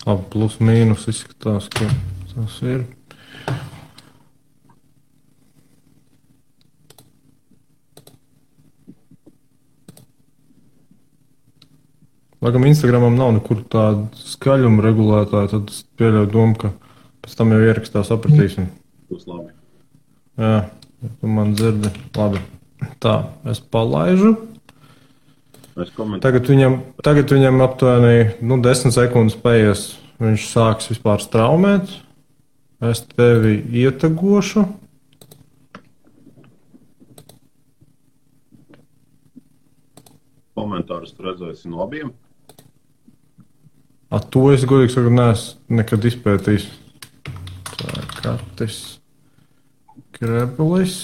Plus mīnus izskatās, ka tas ir. Laikam Instagramam nav nekur tāda skaļuma regulētāja, tad es pieļauju domu, ka pēc tam jau ierakstā sapratīsim. Būs labi. Jā, ja tu man dzirdi. Labi. Tā, es palaižu. Tagad viņam aptuveni 10 sekundes paies. Viņš sāks vispār straumēt. Es tevi ietagošu. Komentārus tu redzēsi no abiem? To es godīgi saku, neesmu nekad izpētījis. Tā ir Katis Grebelis.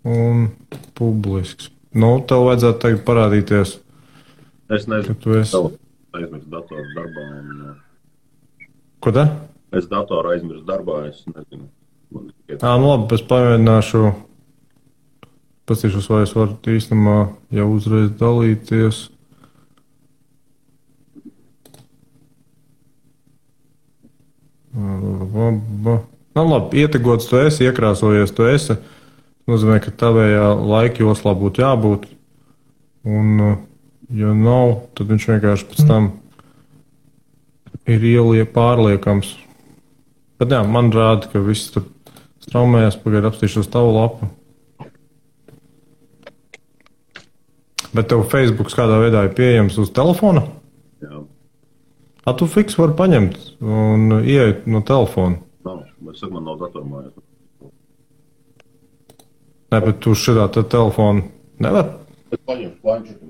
Un publisks. Tev vajadzētu tagad parādīties. Es nezinu, ka tu esi. Aizmirst datoru darbā. Ko tā? Es datoru aizmirst darbā, es nezinu. Labi, es pamēģināšu. Pastīšos, vai es varu īstenībā jau uzreiz dalīties. Labi, ietegots tu esi, iekrāsojies tu esi. Nozīmē, ka tavējā laika joslā būtu jābūt. Un, ja nav, tad viņš vienkārši pēc tam ir pārliekams. Bet jā, man rāda, ka viss tur straumējas, pagaid apstīšos tavu lapu. Bet tev Facebook kādā veidā ir pieejams uz telefona? Jā. Tu fiks vari paņemt un ieiet no telefona? Nav, es saku, man nav datormājās. Nē, bet tu šitā telefonu nevar? Es paņemšu planšeti.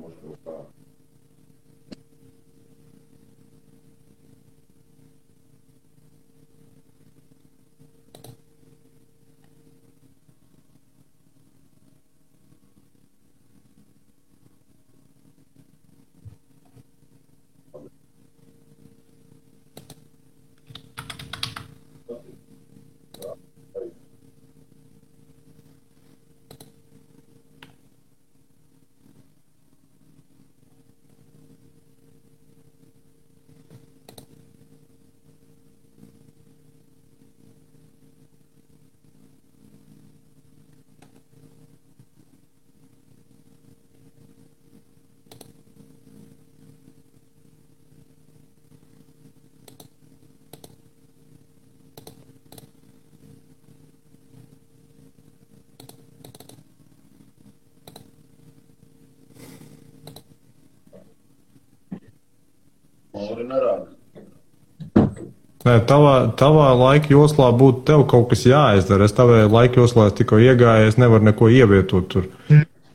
Nē, tavā laika joslā būtu tev kaut kas jāizdara. Es tavā laika joslā tikko iegāju, es nevaru neko ievietot tur.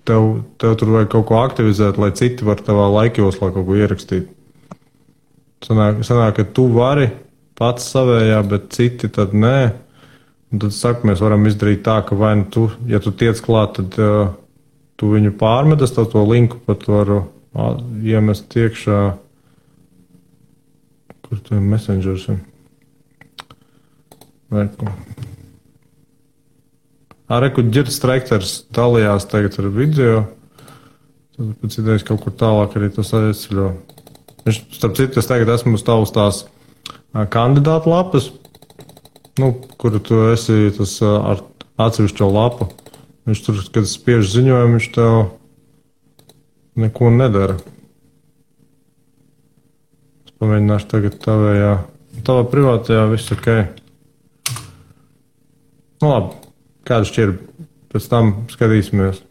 Tev tur vajag kaut ko aktivizēt, lai citi var tavā laika joslā kaut ko ierakstīt. Sanāk, ka tu vari pats savējā, bet citi tad nē. Un tad saka, mēs varam izdarīt tā, ka vai nu tu, ja tu tiec klāt, tad tu viņu pārmet, es to linku pat varu iemest iekšā. Kur tu messengers ir? Reku Ģirds Strekters dalījās tagad ar video. Tad pēc idejas kaut kur tālāk arī tas aizceļo. Viņš, starp citu, es tagad esmu uz tās kandidātu lapas, kuru tu esi tas ar atsevišķo lapu. Viņš tur, kad spiež ziņojumu, viņš tev neko nedara. Es pamēģināšu tagad tavā privātajā viss ok. Labi, kādu šķirbi, pēc tam skatīsimies.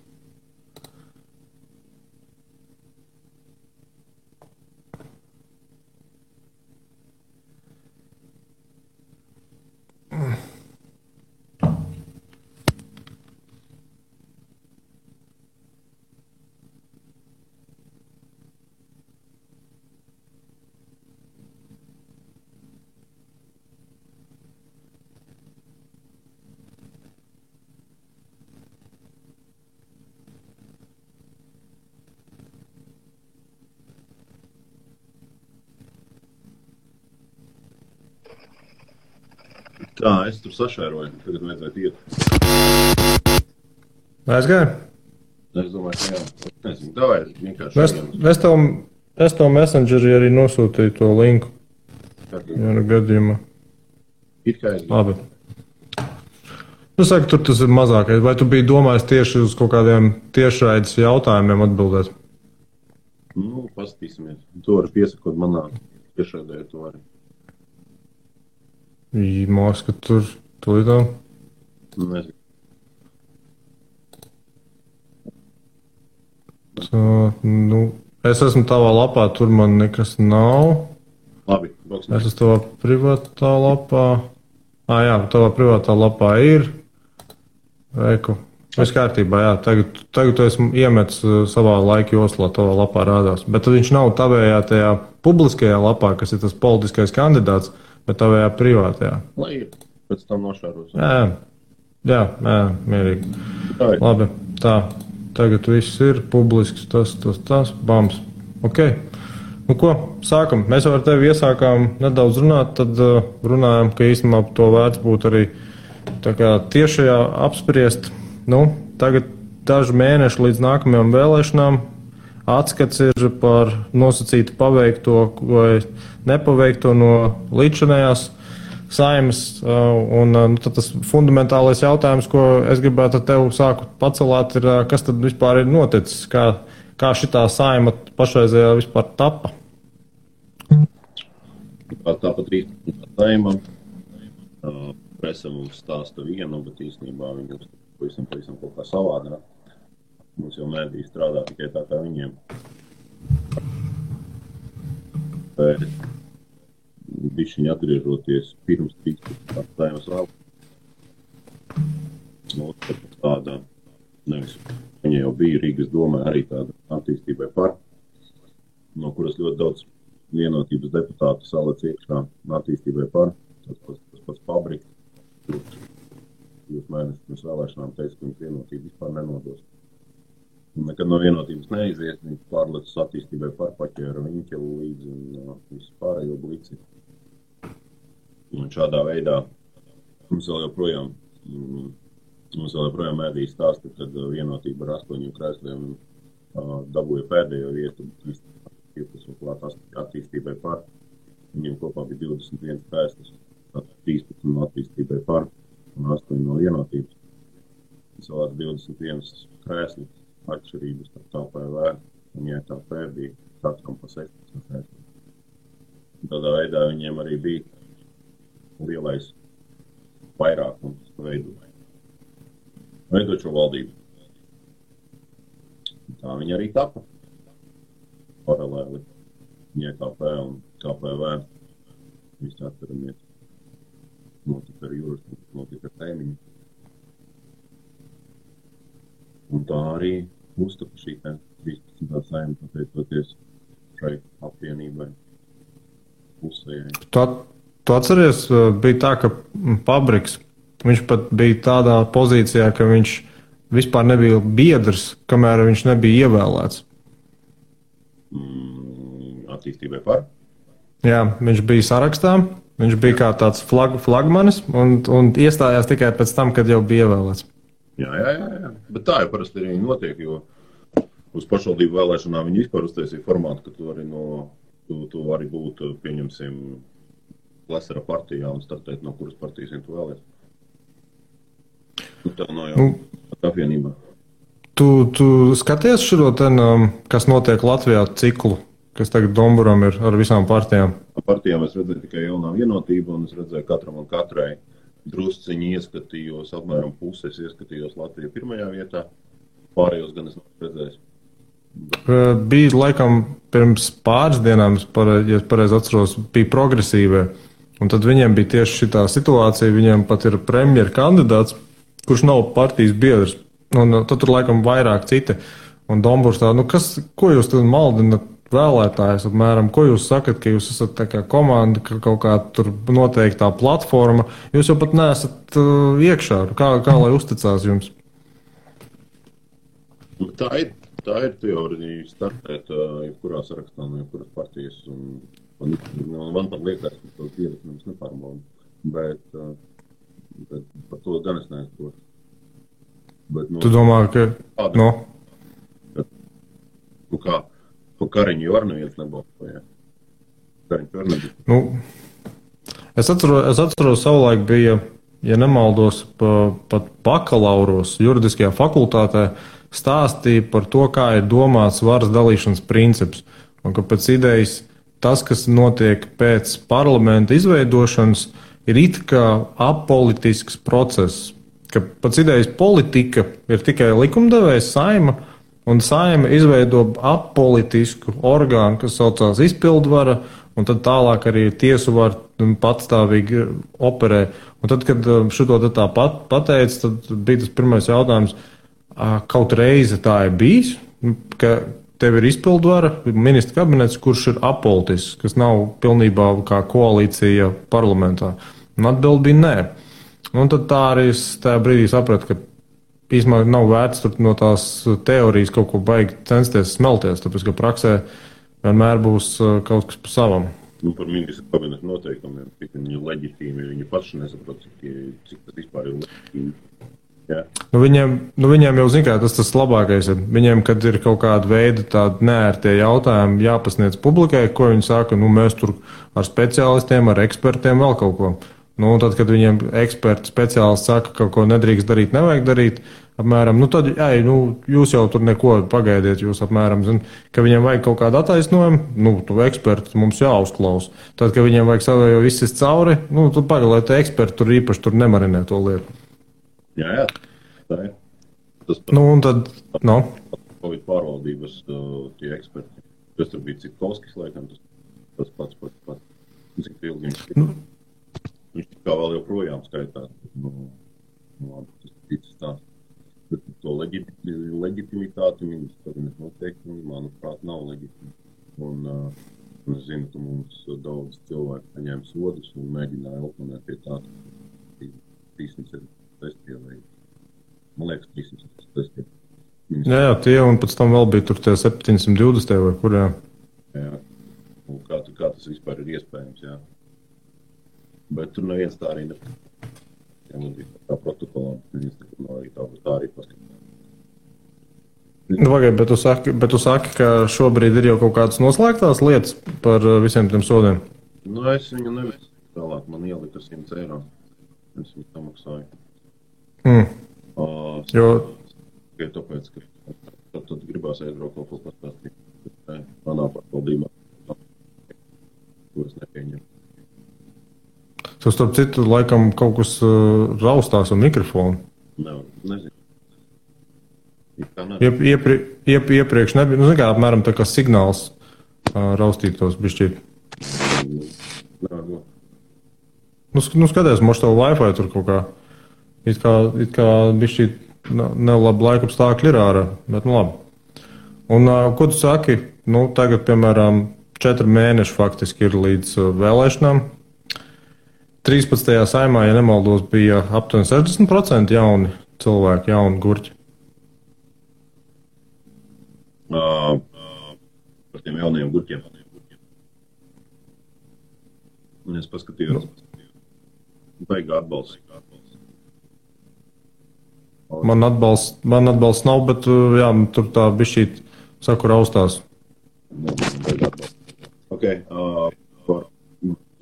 Tā, es tur sašēroju, tagad vajadzētu iet. Aizgāju? Es domāju, ka jā. Es nezinu, davai vienkārši Es, es, tev, es tev Messengerī arī nosūtīju to linku. Jā, gadījumā. It kā es Labi. Nu, saka, tur tas ir mazākais. Vai tu biji domājis tieši uz kaut kādiem tiešraides jautājumiem atbildēt? Nu, paskatīsimies. To var piesakot manā tiešraidē, to arī. Māks, ka tur tulītā. Nezinu. Tā, nu, es esmu tavā lapā, tur man nekas nav. Labi, Es esmu tavā privātā lapā. Jā, tavā privātā lapā ir. Reiku. Viss kārtībā, jā. Tagad tu esi iemetis savā laika joslā, tavā lapā rādās. Bet tad viņš nav tavējā tajā publiskajā lapā, kas ir tas politiskais kandidāts, bet tavējā privātajā. Lai ir. Pēc tam nošāros. Jā, mierīgi. Tā ir. Labi, tā. Tagad viss ir publisks, tas, bams. Ok. Nu ko, sākam. Mēs jau ar tevi iesākām nedaudz runāt, tad runājam, ka īstenībā to vērts būtu arī tā kā tiešajā apspriest. Nu, tagad daži mēneši līdz nākamajām vēlēšanām. Atskats ir par nosacītu paveikto vai nepaveikto no līdzinējās Saeimas, un tad tas fundamentālais jautājums, ko es gribētu ar tevi sāku pacelāt, ir, kas tad vispār ir noticis, kā šitā Saeima pašreizējā vispār tapa? Tāpat 13. Saeima. Presa mums stāsta vienu, bet īstenībā viņi pavisam kaut kā savādāk. Mums jau mēdī strādā tikai tā kā viņiem. Bet bišķiņi atgriežoties pirms 13. Saeimas vēl. Nu, tāda, nevis, viņa jau bija Rīgas domē arī tāda attīstībai par, no kuras ļoti daudz vienotības deputātu salec iekšā attīstībai par. Tas pats Pabriks. Jūs mēnešus pirms vēlēšanām teica, ka viņš vienotību vispār nenodos. Nekad no vienotības neizies, viņš pārlecas attīstībai par paķēra Viņķelu līdzi un visu pārējo blici. Un šādā veidā mums vēl joprojām mēdī stāsta, kad vienotība ar 8 krēsliem dabūja pēdējo vietu, klāt attīstībai par. Viņiem kopā bija 21 krēslis, 13 no attīstībai par un 8 no vienotības. Savās 21 krēslis atšķirības starp KPV un JKP bija katram pa 16 krēslis. Tādā veidā viņiem arī bija lielais vairākums veidot šo valdību. Tā viņi arī tapa paralēli JKP un KPV. Visi atceramies. Notika ar Jūras, notika ar Tēmiņu. Un tā arī uztapa šī 13. Saeima, pateicoties šai apvienībai pusējai. Tu atceries, bija tā, ka Pabriks, viņš pat bija tādā pozīcijā, ka viņš vispār nebija biedrs, kamēr viņš nebija ievēlēts. Attīstībai par? Jā, viņš bija sarakstā, viņš bija kā tāds flagmanis un iestājās tikai pēc tam, kad jau bija ievēlēts. Jā. Bet tā jau parasti arī notiek, jo uz pašvaldību vēlēšanām viņi vispār uztaisīja formātu, ka tu vari būt, pieņemsim, Lesera partijā un startēt, no kuras partijas tu vēlēs. Tā nav jau apvienībā. Tu skaties šo ten, kas notiek Latvijā ciklu, kas tagad Domburam ir ar visām partijām? Partijām es redzēju tikai jaunā vienotība, un es redzēju katram un katrai drusciņi ieskatījos, apmēram puses ieskatījos Latviju pirmajā vietā, pārējos gan es nav redzējis. Bija laikam pirms pāris dienām, ja pareizi atceros, bija progresīvie, un tad viņiem bija tieši šitā situācija, viņiem pat ir premjera kandidāts, kurš nav partijas biedrs, un tad tur laikam vairāk citi, un Domburs tā, ko jūs tad maldinat vēlētājus apmēram, ko jūs sakat, ka jūs esat tā kā komanda, ka kaut kā tur noteiktā platforma, jūs jau pat neesat iekšā, kā lai uzticās jums? Tā ir teorija startēt jebkurā sarakstā no jebkuras partijas, un man pat liekas, ka tos biedrus mums nepārbauda, bet par to gan es neesprotu. Tu domā, ka... Nu kā, pa Kariņu jau ar neviens nebalsoja. Kariņš ar nebija. Nu, es atceros savulaik bija, ja nemaldos, pat bakalauros juridiskajā fakultātē stāstīja par to, kā ir domāts varas dalīšanas princips. Un ka pēc idejas tas, kas notiek pēc parlamenta izveidošanas, ir it kā apolitisks process. Ka pēc idejas politika ir tikai likumdevējs Saima, un Saima izveido apolitisku orgānu, kas saucās izpildvara, un tad tālāk arī tiesu var patstāvīgi operē. Un tad, kad šito tā pateica, tad bija tas pirmais jautājums, kaut reizi tā ir bijis, ka tev ir izpildvara, ministra kabinets, kurš ir apolitisks, kas nav pilnībā kā koalīcija parlamentā. Un atbildi bija nē. Un tad tā arī es tajā brīdī sapratu, ka īstenībā nav vērts tur no tās teorijas kaut ko baigi censties smelties, tāpēc, ka praksē vienmēr būs kaut kas pa savam. Nu, par ministra kabineta noteikumiem, cik viņi ir leģitīmi, viņi paši nesaprot, cik tas vispār ir leģitīmi. Jā. Viņiem jau zin kā, tas labākais ir. Viņiem, kad ir kaut kāda veida tādi neērtie jautājumi jāpasniedz publikai, ko viņi saka, mēs tur ar speciālistiem, ar ekspertiem vēl kaut ko. Un tad, kad viņiem eksperti, speciālisti saka, ka kaut ko nedrīkst darīt, nevajag darīt, apmēram, tad, jūs jau tur neko pagaidiet, jūs apmēram, ka viņiem vajag kaut kādu attaisnojumu, tu eksperti mums jāuzklaus. Tad, kad viņiem vajag savējo izsist cauri, tad pagaidāt, lai eksperti tur īpaši tur nemarinē to lietu. Jā, tā ir. Tas un tad, Covid pārvaldības tie eksperti, kas tur bija Cikovskis, laikam, tas pats. Cik ilgi viņš kā vēl joprojām skaitās. Tas ticis tā. Bet to leģitimitāti ministra kabineta noteikumi, manuprāt, nav leģitimi. Un es zinu, ka mums daudz cilvēku saņēma sodus un mēģināja oponēt pie tā, 300 testie vai, man liekas, 300 testie. Jā, tie un pēc tam vēl bija tur tie 720 vai kur, jā. Jā, un kā tas vispār ir iespējams, jā. Bet tur neviens tā arī nepasaka. Jā, man bija tā protokolā, arī tā arī paskatās. Bet tu saki, ka šobrīd ir jau kaut kādas noslēgtās lietas par visiem tiem sodiem? Es viņu nevisu tālāk, man ielika 100 eiro. Es viņu samaksāju. Tikai tāpēc, ka tad gribās aizbraukt kaut ko pastāstīt. Manā pārvaldībā, ko es nepieņemu. Tu starp citu laikam kaut kas raustās ar mikrofonu. Nezinu. Iepriekš nebija, kā apmēram tā kā signāls raustītos bišķīt. Skaties, moš tev Wi-Fi tur kaut kā, it kā bišķīt nelabi laikapstākļi ir ārā, bet labi. Un ko tu saki, tagad, piemēram, 4 mēneši faktiski ir līdz vēlēšanām. 13. Saimā, ja nemaldos, bija aptuveni 60% jauni cilvēki, jauni gurķi. Par tiem jaunajiem gurķiem. Es paskatījos. Baigā atbalsts. Man atbalsts nav, bet jā, tur tā bišķīt saku raustās. Baigā atbalsts. Ok,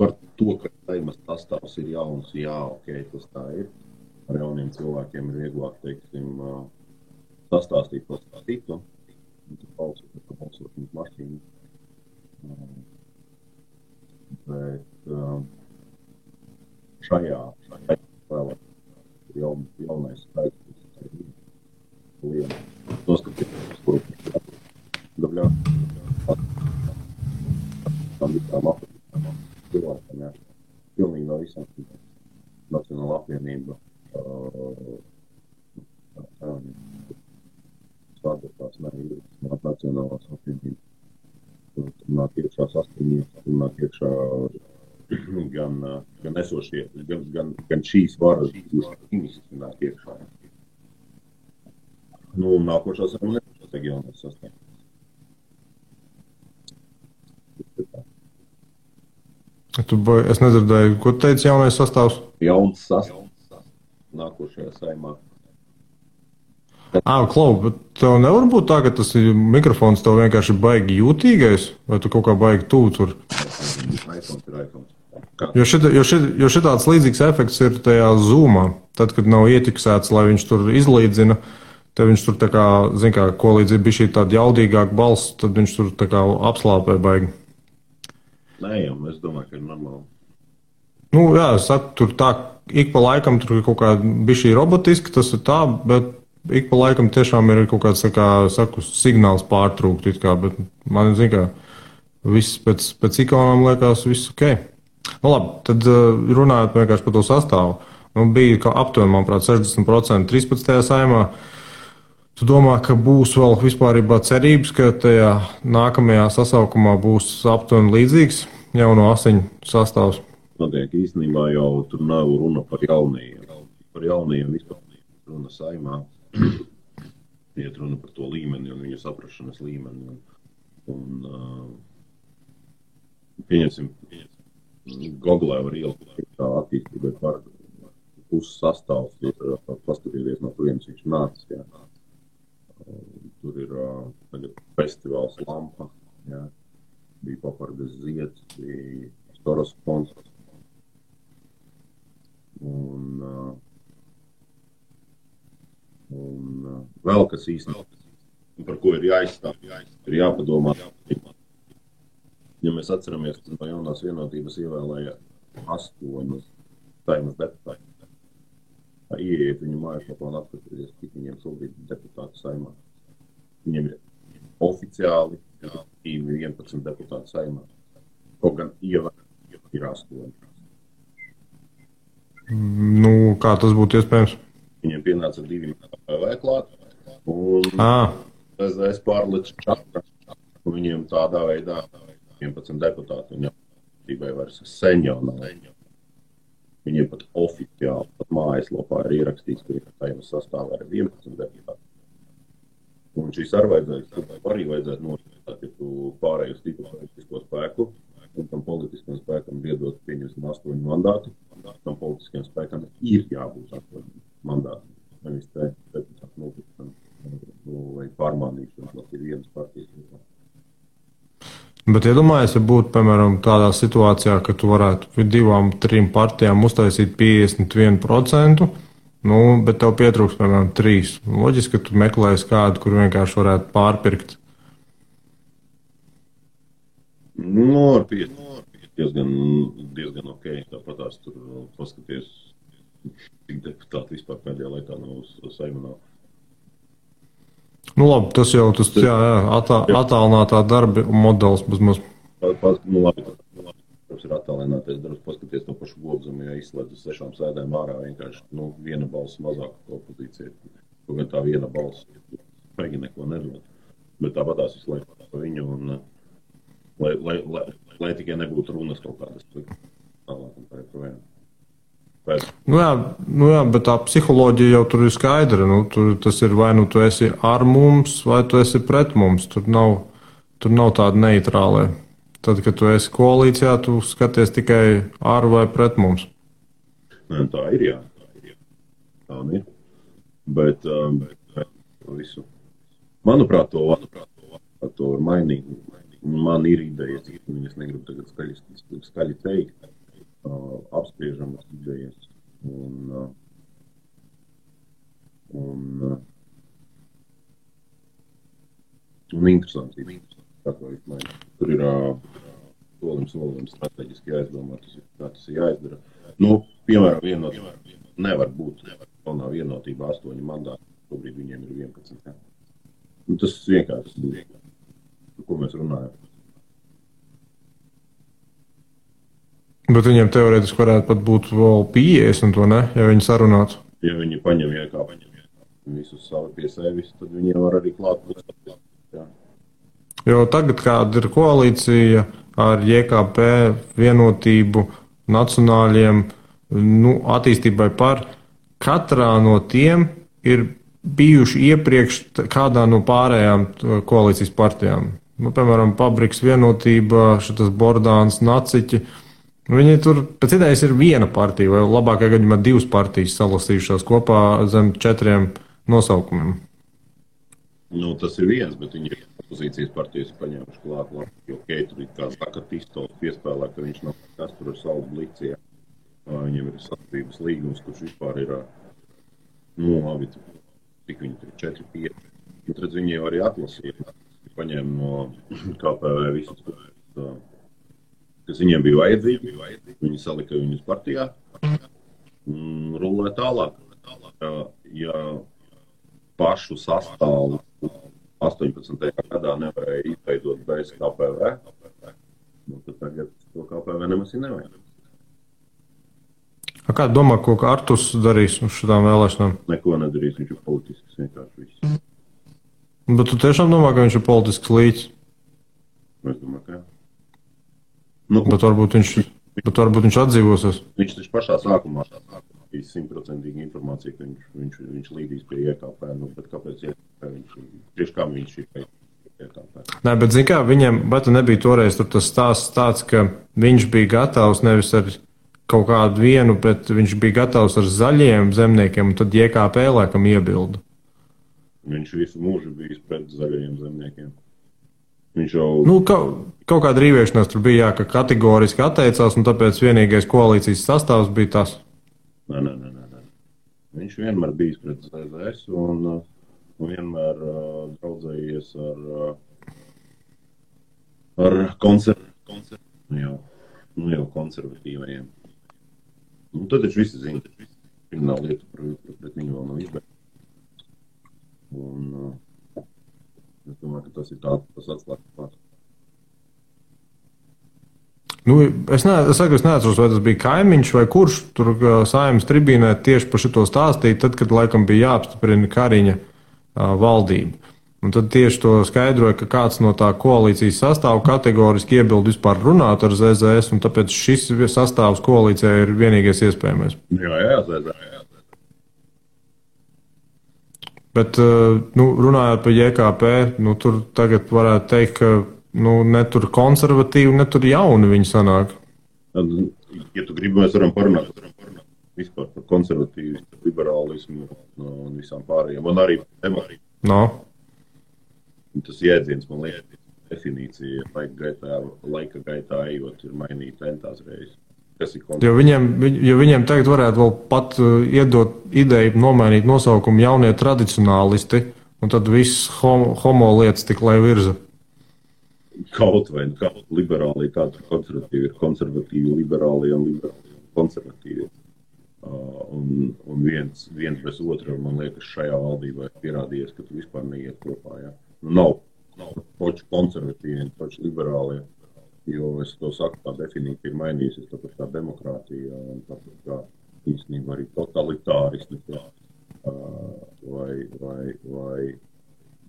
par to, ka Saimas sastāvs ir jauns, jā, ok, tas tā ir. Ar jauniem cilvēkiem ir vieglāk, teiksim, sastāstīt to stāstītu. Un tad balsošanas mašīnu. Bet šajā vēl ir jaunais skaits, kas ir liela. Tos, ka kuru dabļā tam visām cilvēkam, jā. Pilnīgi no visām Nacionāla apvienība svādotās Nacionālās apvienības. Tur nāk iekšā saskaņības, tur nāk iekšā gan esošie, gan šīs varas ministri nāk iekšā. Nākošā saimā nebūs jaunais sastāvs. Es nedzirdēju, ko teica jaunais sastāvs? Jauns sastāvs nākošajā saimā. Klau, bet tev nevar būt tā, ka tas mikrofons tev vienkārši baigi jūtīgais, vai tu kaut kā baigi tuvu tur? Jo šitāds līdzīgs efekts ir tajā Zoomā. Tad, kad nav ietiksēts, lai viņš tur izlīdzina, tad viņš tur tā kā, zin kā, ko līdz ir bijis tāda jaudīgāka balss, tad viņš tur tā kā apslāpē baigi. Nē, jau, es domāju, ka ir normāli. Nu, jā, es saku, tur tā, ik pa laikam tur ir kaut kā bišķī robotiski, tas ir tā, bet ik pa laikam tiešām ir kaut kāds, tā kā, saku, signāls pārtrūkt, it kā, bet man, zin kā, viss pēc ikonām liekas, viss ok. Nu, labi, tad runājot vienkārši par to sastāvu. Nu, bija aptuveni, manuprāt, 60% 13. saimā. Tu domā, ka būs vēl vispārībā cerības, ka tajā nākamajā sasaukumā būs aptuveni līdzīgs jauno asiņu sastāvs? Notiek īstenībā jau tur nav runa par jaunajiem. Par jaunajiem vispār runa saimā. Iet runa par to līmeni un viņu saprašanas līmeni. Un pieņemsim, Googlē var ielikt tā attīstībai par puses sastāvs, paskatieties, no kurienes viņš nācis. Jā. Tur ir tagad festivāls Lampa, jā. Bija Papardes zieds, bija Storas fonds. Un vēl kas īstenībā, par ko ir jāizstāv, ir jāpadomā. Ja mēs atceramies, ka no jaunās vienotības ievēlēja 8 saimas deputāti. Ieiet viņu mājaslapā un apskatīties, cik viņiem šobrīd deputāti saimā. Viņiem ir oficiāli 11 deputāti saimā. Kaut gan ievēlēja ir 8. Nu, kā tas būtu iespējams? Viņiem pienāca 2 PV klāt, un es pārlicu čakra, un viņiem tādā veidā 11 deputāti, un jau vairs sen jau nav. Viņiem pat oficiāli, pat mājaslapā ir ierakstīts, ka saimas sastāvā ir 11 deputāti. Un šīs arī vajadzētu notiekāt, ja tu pārēj uz tipu politisko spēku, un tam politiskam spēkam iedot pieņemsim 8 mandātu, tam politiskam spēkam ir jābūt 8 mandāti. Nevis te deputāti notikšana vai pārmānīšana, tas ir vienas partijas. Bet iedomājies, ja būtu, piemēram, tādā situācijā, ka tu varētu 2-3 partijām uztaisīt 51%, nu, bet tev pietrūks, piemēram, 3. Loģiski, ka tu meklēsi kādu, kur vienkārši varētu pārpirkt. Nu, ar 5 diezgan ok. Tāpatās tur paskaties, cik deputāti vispār pēdējā laikā nav uz Saeimu. Nu labi, tas jau tas attālinātā darba modelis bezmaz. Nu labi, tas ir attālinātais darbs, paskaties to pašu Gobzemu, ja izslēdz uz 6 sēdēm ārā vienkārši, viena balss mazāk opozīcija. Kaut gan tā viena balss Pegi neko nedod. Bet tāpatās visu laiku par viņu un lai tikai nebūtu runas kaut kādas tālāk un tā joprojām. Nu jā, bet tā psiholoģija jau tur ir skaidra. Tas ir vai nu tu esi ar mums, vai tu esi pret mums. Tur nav tāda neitrālē. Tad, kad tu esi koalīcijā, tu skaties tikai ar vai pret mums. Nē, tā ir, jā. Tā ir. Bet visu. Manuprāt, to var mainīt. Man ir idejas, es negribu tagad skaļi teikt. Apspriežamas idejas un interesanti. Tur ir solim strateģiski jāizdomā, tas ir jāizdara. Nu, piemēram, nevar būt jaunā vienotība 8 mandāti, šobrīd viņiem ir 11. Nu, tas vienkārši būs, par ko mēs runājam. Bet viņiem teorētiski varētu pat būt vēl 50, to ne, ja viņi sarunātu. Ja viņi paņem visus savu pie sevis, tad viņiem var arī klāt pusēt. Jo tagad, kāda ir koalīcija ar JKP, vienotību, nacionāļiem, attīstībai par, katrā no tiem ir bijuši iepriekš kādā no pārējām koalīcijas partijām. Piemēram, Pabriks vienotība, šitas Bordāns, Naciķi. Viņi tur pēc idejas ir viena partija, vai labākajā gadījumā 2 partijas salasījušās kopā zem 4 nosaukumiem. Nu, tas ir viens, bet viņi ir opozīcijas partijas paņēmuši klāt, jo Keitri, kā saka, Tistols piespēlē, ka viņš nav kas tur ar savu blicijā. Viņam ir sadarbības līgums, kurš vispār ir, labi, cik viņi tur 4-5. Un tad viņi jau arī atlasīja, paņēma no KPV visus, kas viņiem bija vajadzīgi. Viņi salika viņus partijā un rullē tālāk. Ja pašu sastāvu 18. gadā nevarēja izveidot bez KPV, tad tagad to KPV nemaz ir nevajag. Kā domā, ko Arturs darīs uz šādām vēlēšanām? Neko nedarīs, viņš ir politisks vienkārši viss. Bet tu tiešām domā, ka viņš ir politisks līķis? Es domāju, ka jā. Bet varbūt viņš atdzīvosies. Viņš taču pašā sākumā bija 100% informācija, ka viņš līdīs pie IKP, bet kāpēc tieši kā viņš ir pie IKP? Nē, bet zini kā, viņam, bet nebija toreiz tur tas stāsts tāds, ka viņš bija gatavs nevis ar kaut kādu vienu, bet viņš bija gatavs ar zaļiem zemniekiem, un tad IKP laikam iebilda. Viņš visu mūžu bijis pret zaļajiem zemniekiem. Viņš jau... Kaut kāda rīvēšanās tur bija, ka kategoriski atteicās, un tāpēc vienīgais koalīcijas sastāvs bija tas. Nē. Viņš vienmēr bijis pret ZZS un vienmēr draudzējies ar konservatīvajiem. Un tad taču visi zina, ka krimināla lieta pret viņu vēl nav izbeigta. Un es domāju, ka tas ir tas atslēgas pats. Es neatceros, vai tas bija kaimiņš vai kurš tur Saeimas tribīnē tieši par šito stāstīja, tad, kad laikam bija jāapstiprina Kariņa valdība. Un tad tieši to skaidroja, ka kāds no tā koalīcijas sastāvu kategoriski iebildu vispār runāt ar ZZS, un tāpēc šis sastāvs koalīcijā ir vienīgais iespējamais. Jā, ZZS. Bet, runājot par JKP, tur tagad varētu teikt, ka ne tur konservatīvi, ne tur jauni viņi sanāk. Ja tu gribi, mēs varam parunāt vispār par konservatīvu, liberālismu un visām pārējām. Un arī demokrātiju. No. Tas jēdziens, man liekas, definīcija laika gaitā ejot ir mainīta entās reizes. Jo viņiem tagad varētu vēl pat iedot ideju nomainīt nosaukumu jaunie tradicionālisti, un tad viss homo lietas tik lai virza. Kaut vai liberāli, kā tur konservatīvi ir konservatīvi, liberāli un liberāli konservatīvi. Un viens bez otra, man liekas, šajā valdībā ir pierādījies, ka tu vispār neiet kopā. Ja? Nav poči konservatīvi, poči liberāli, jo es to saku, tā definīcija ir mainījusies, tāpēc kā demokrātija, un tāpēc kā īstenībā arī totalitāristi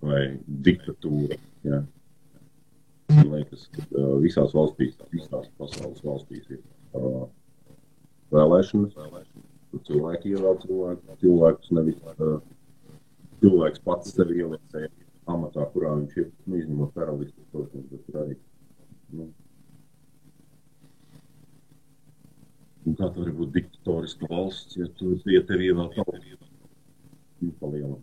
vai diktatūra. Ja? Man liekas, ka visās pasaules valstīs ir vēlēšanas, kur cilvēki ievēl cilvēkus, nevis cilvēks pats sevi ieliecēja amatā, kurā viņš ir, izņemot karalistus, protams, bet arī. Un kā tā var būt diktatoriska valsts, ja tevi ievēl tautu palielam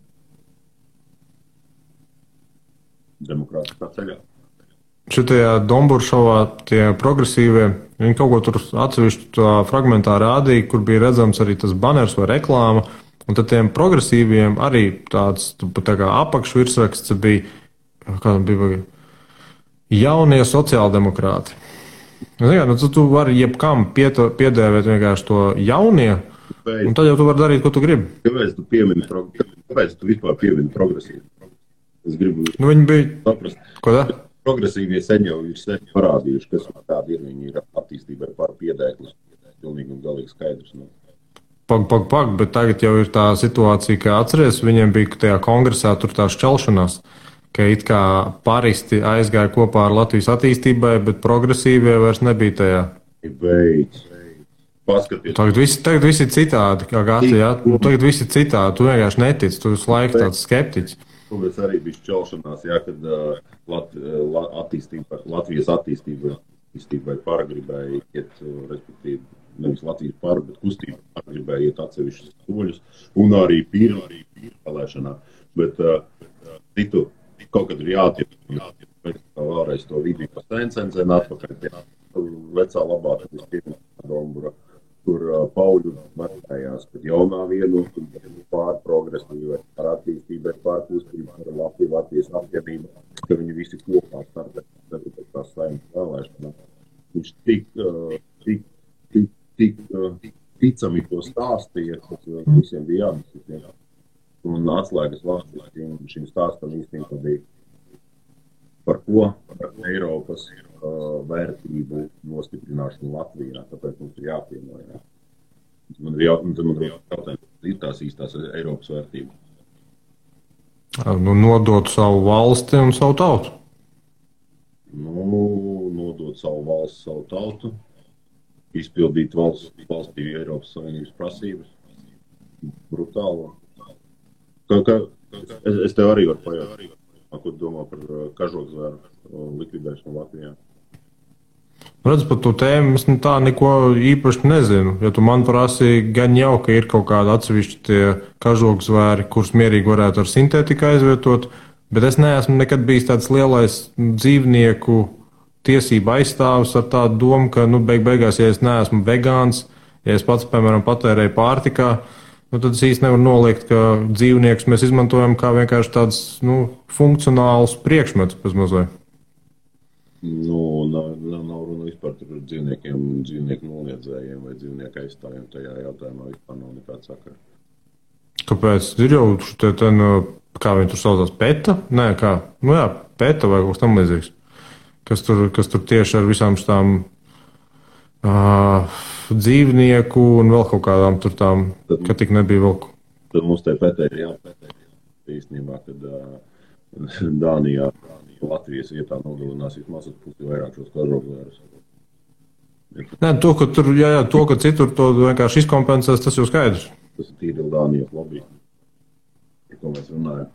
demokrātiskā ceļā. Šitajā Domburšovā tie progresīvie, viņi kaut ko tur atsevišķu fragmentā rādīja, kur bija redzams arī tas baners vai reklāma, un tad tiem progresīviem arī tāds tā kā apakšvirsraksts bija, jaunie sociāldemokrāti. Tu vari jebkam piedēvēt vienkārši to jaunie, un tad jau tu vari darīt, ko tu gribi. Kāpēc tu vispār piemini progresīvi? Es gribu viņi bija saprast. Ko tā? Progresīvie sen jau ir parādījuši, kas tādi ir, viņi ir attīstībai par piedēklis. Pilnīgi un galīgi skaidrs. Pag, bet tagad jau ir tā situācija, ka atceries, viņiem bija tajā kongresā tur tā šķelšanās, ka it kā paristi aizgāja kopā ar Latvijas attīstībai, bet progresīvie vairs nebija tajā. Beidz. Paskaties. Tagad visi ir citādi, kā gati, jā. Tagad visi ir citādi, tu vienkārši netici, tu visu laiku tāds skeptiķis. Tāpēc arī bija šķelšanās, jā, kad Latvijas attīstībai para gribēja iet, respektīvi, nevis Latvijas para, bet kustība para gribēja iet atsevišķus soļus, un arī pīra vēlēšanā. Bet citu kaut kad ir jātiek. Vēlreiz to video sen atpakaļ pie vecā labā Dombura, kur Pauļu metējās, kad jaunā vienotuma pār progresīvai, par attīstībai, pār kustībai, par Latvijas apvienību, ka viņi visi kopā startē tās saimnes vēlēšanās. Viņš tik ticami to stāstīja, ka visiem bija jādiskusē. Un atslēgas vārds šim stāstam īstenībā bija par ko? Par Eiropas vērtību nostiprināšanu Latvijā, tāpēc mums ir jāpiemēr. Man ir jautājums, ir tās īstās Eiropas vērtības? Nu, nodot savu valsti un savu tautu. Nodot savu valsti, savu tautu, izpildīt valstī Eiropas Savienības prasības. Brutālo. Es tev arī varu pajautāt. Ko domā par kažokzvēru likvidēšanu Latvijā? Redz, par to tēmu es tā neko īpaši nezinu. Ja tu man prasīji, gan jau, ka ir kaut kādi atsevišķi tie kažokzvēri, kurus mierīgi varētu ar sintētiku aizvietot, bet es neesmu nekad bijis tāds lielais dzīvnieku tiesību aizstāvis ar tādu domu, ka, beigās, ja es neesmu vegāns, ja es pats, piemēram, patērēju pārtikā, tad es īsti nevaru noliegt, ka dzīvniekus mēs izmantojam kā vienkārši tāds funkcionāls priekšmets pēc mazliet. Nav runa vispār par dzīvnieku noliedzējiem vai dzīvnieku aizstāvjiem. Tajā jautājumā vispār nav nekāda sakara. Kāpēc? Ir jau kā viņi tur saucās, PETA? Nē, kā? PETA vai kaut kas tam līdzīgs. Kas tur tieši ar visām šitām dzīvnieku un vēl kaut kādām tur tām, ka tik nebija vēl. Tad mums te PETA ir jāpētē. Īstenībā, kad Dānijā Latvijas vietā nogalinās vismaz pusi vairāk šos kažokzvērus. Nē, to, ka citur to vienkārši izkompensēs, tas jau skaidrs. Tas ir tīri Dānijas lobby, par ko mēs runājam.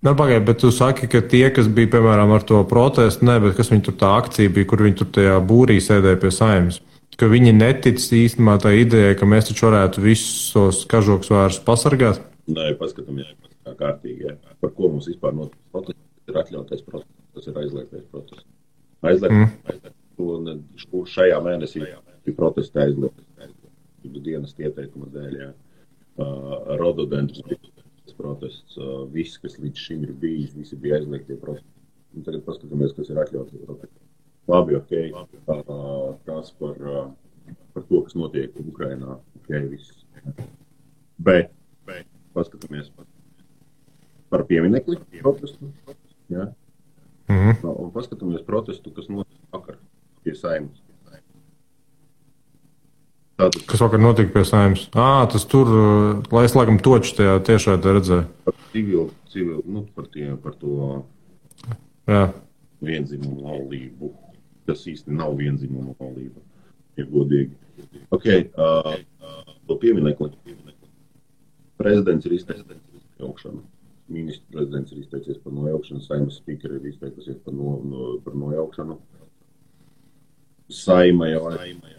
Pagaid, bet tu saki, ka tie, kas bija, piemēram, ar to protestu, bet kas viņi tur tā akcija bija, kur viņi tur tajā būrī sēdēja pie saimnes, ka viņi netic īstenībā tā ideja, ka mēs taču varētu visus kažokzvērus pasargāt? Nē, paskatāmies kā kārtīgi. Jā. Par ko mums vispār notiek protests? Tas ir atļautais protests, tas ir aizliegtais protests. Kur šajā mēnesī ir protesti aizliegtas. Dienas ieteikuma dēļ, jā. Rododendrus protests, viss, kas līdz šim ir bijis, visi bija aizliegtie protesti. Un tagad paskatāmies, kas ir atļautie protesti. Labi, tas par to, kas notiek Ukrainā, viss. Bet paskatāmies par pieminekli protestu. Ja? Un paskatāmies protestu, kas notiek vakar pie saimnes. Kas vakar notika pie saimnes? Tas tur, lai es laikam toču tajā tiešraidē redzēju. Par to vienzimumu laulību. Tas īsti nav vienzimumu laulība, ja godīgi. To pieminekli. Prezidents ir izteicies par nojaukšanu. Ministrs prezidents ir izteicies par nojaukšanu. Saeimas spīkeri ir izteikusies par nojaukšanu. Saima jau,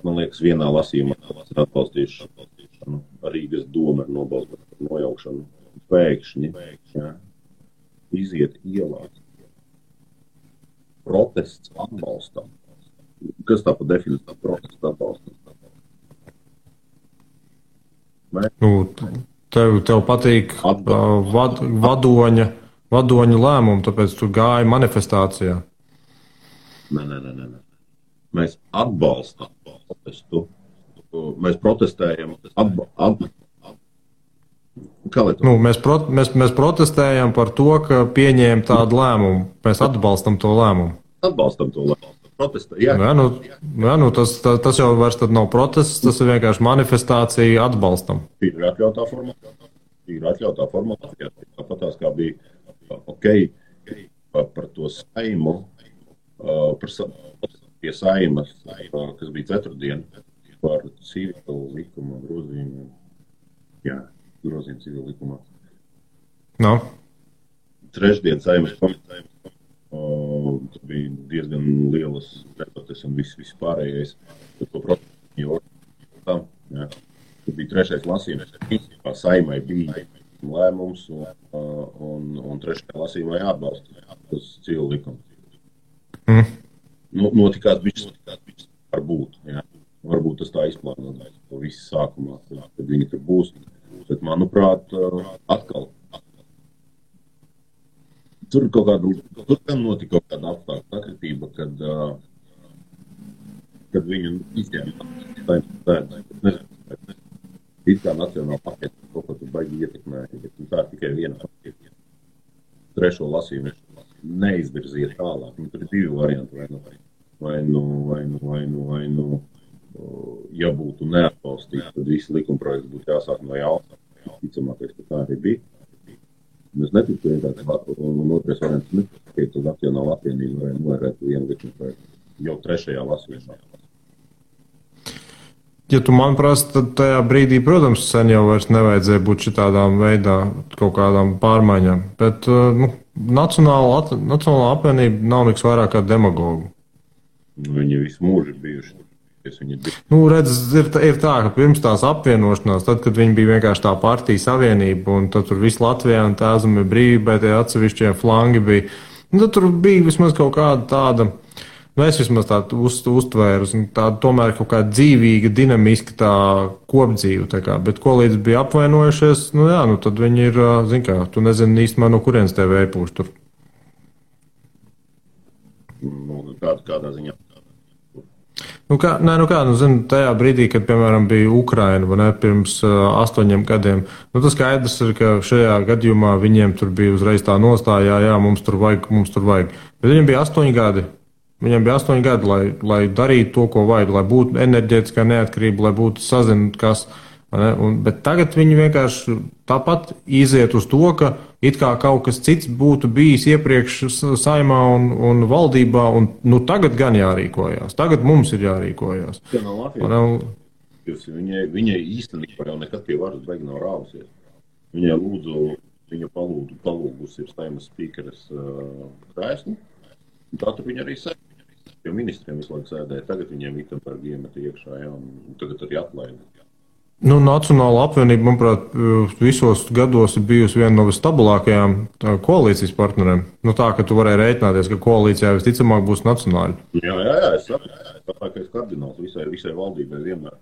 man liekas, vienā lasījumā ir atbalstījuši. Rīgas doma ir nobalstījusi par nojaukšanu. Pēkšņi iziet ielās. Protests atbalstam. Kas tā pa definīciju protests atbalstam? Tev patīk vadoņa lēmumu, tāpēc tu gāji manifestācijā. Nē. Mēs atbalstam protestu. Mēs protestējam. Mēs protestējam par to, ka pieņēma tādu lēmumu. Mēs atbalstam to lēmumu. Tas jau vairs tad nav protests, tas ir vienkārši manifestācija atbalstam. Ir atļautā formācijā. Tāpatās kā bija par to saimu, pie saimas, kas bija ceturtdien, par civilu likumu grozījumu. Grozījumu civilu likumā. Trešdien saimas komitē. Tas bija diezgan lielas debates un viss pārējais. To protestu tas bija trešais lasījums. Saimai bija lēmums un un trešajā lasījumā jāatbalsta tas civil likums. Notikās bišķi varbūt, jā. Varbūt tas tā izplānot to visu sākumā, kad viņi tur būs. Bet, manuprāt, atkal. Tur notika kaut kāda apstākļa sakritība, kad viņu izņēma it kā nacionāla paketa kaut ko tur baigi ietekmēja, bet tā ir tikai viena paketa. Trešo lasījumu neizvirzīja tālāk. Tur ir divi varianti, vai nu, ja būtu neatbalstīts, tad visi likumprojekti būtu jāsāk no jauna. Ticamākais, ka tā arī bija. Mēs neticu vienkārši, un otrais variants nepakaīt uz nacionālu apvienību, vai novērēt vienu likumprojektu jau trešajā lasījumā. Ja tu man prasa, tad tajā brīdī, protams, sen jau vairs nevajadzēja būt šitādām veidā kaut kādām pārmaiņām. Bet Nacionāla apvienība nav nekas vairāk kā demagogu. Viņi visu mūžu ir bijuši. Redz, ir tā, ka pirms tās apvienošanās, tad, kad viņi bija vienkārši tā partija savienība, un tad tur viss Latvijā un Tēzumi brīvībai, tie atsevišķie flangi bija, tad tur bija vismaz kaut kāda tāda, es vismaz tādu uztvēru, tāda tomēr kaut kāda dzīvīga, dinamiska tā kopdzīve, tā kā, bet ko līdz bija apvainojušies, tad viņi ir, tu nezini īstumā, no kurienes tev ēpūš tur. Kādā ziņā? Tajā brīdī, kad, piemēram, bija Ukraina, vai ne, pirms 8 gadiem, tas skaidrs ir, ka šajā gadījumā viņiem tur bija uzreiz tā nostājā, jā, mums tur vajag. Bet viņiem bija 8 gadi. Viņiem bija 8 gadi, lai darītu to, ko vajag, lai būtu enerģētiskā neatkarība, lai būtu sazināta kas. Bet tagad viņi vienkārši tāpat iziet uz to, ka it kā kaut kas cits būtu bijis iepriekš saimā un valdībā, un tagad gan jārīkojās. Tagad mums ir jārīkojās. Viņai īstenībā jau nekad pie varas beig nav rāvusies. Viņa palūgus ir saimas spīkeres krēslu, un tā tur viņa arī sēdēja. Jo ministriem visu laiku sēdēja, tagad viņiem Vitenbergi iemeta iekšā, jā, un tagad arī atlaida. Nacionāla apvienība, manuprāt, visos gados ir bijusi viena no visstabilākajām koalīcijas partneriem. Tā, ka tu varēji rēķināties, ka koalīcijā visticamāk būs nacionāļi. Jā, es saprotu, kardināls visai valdībai vienmēr.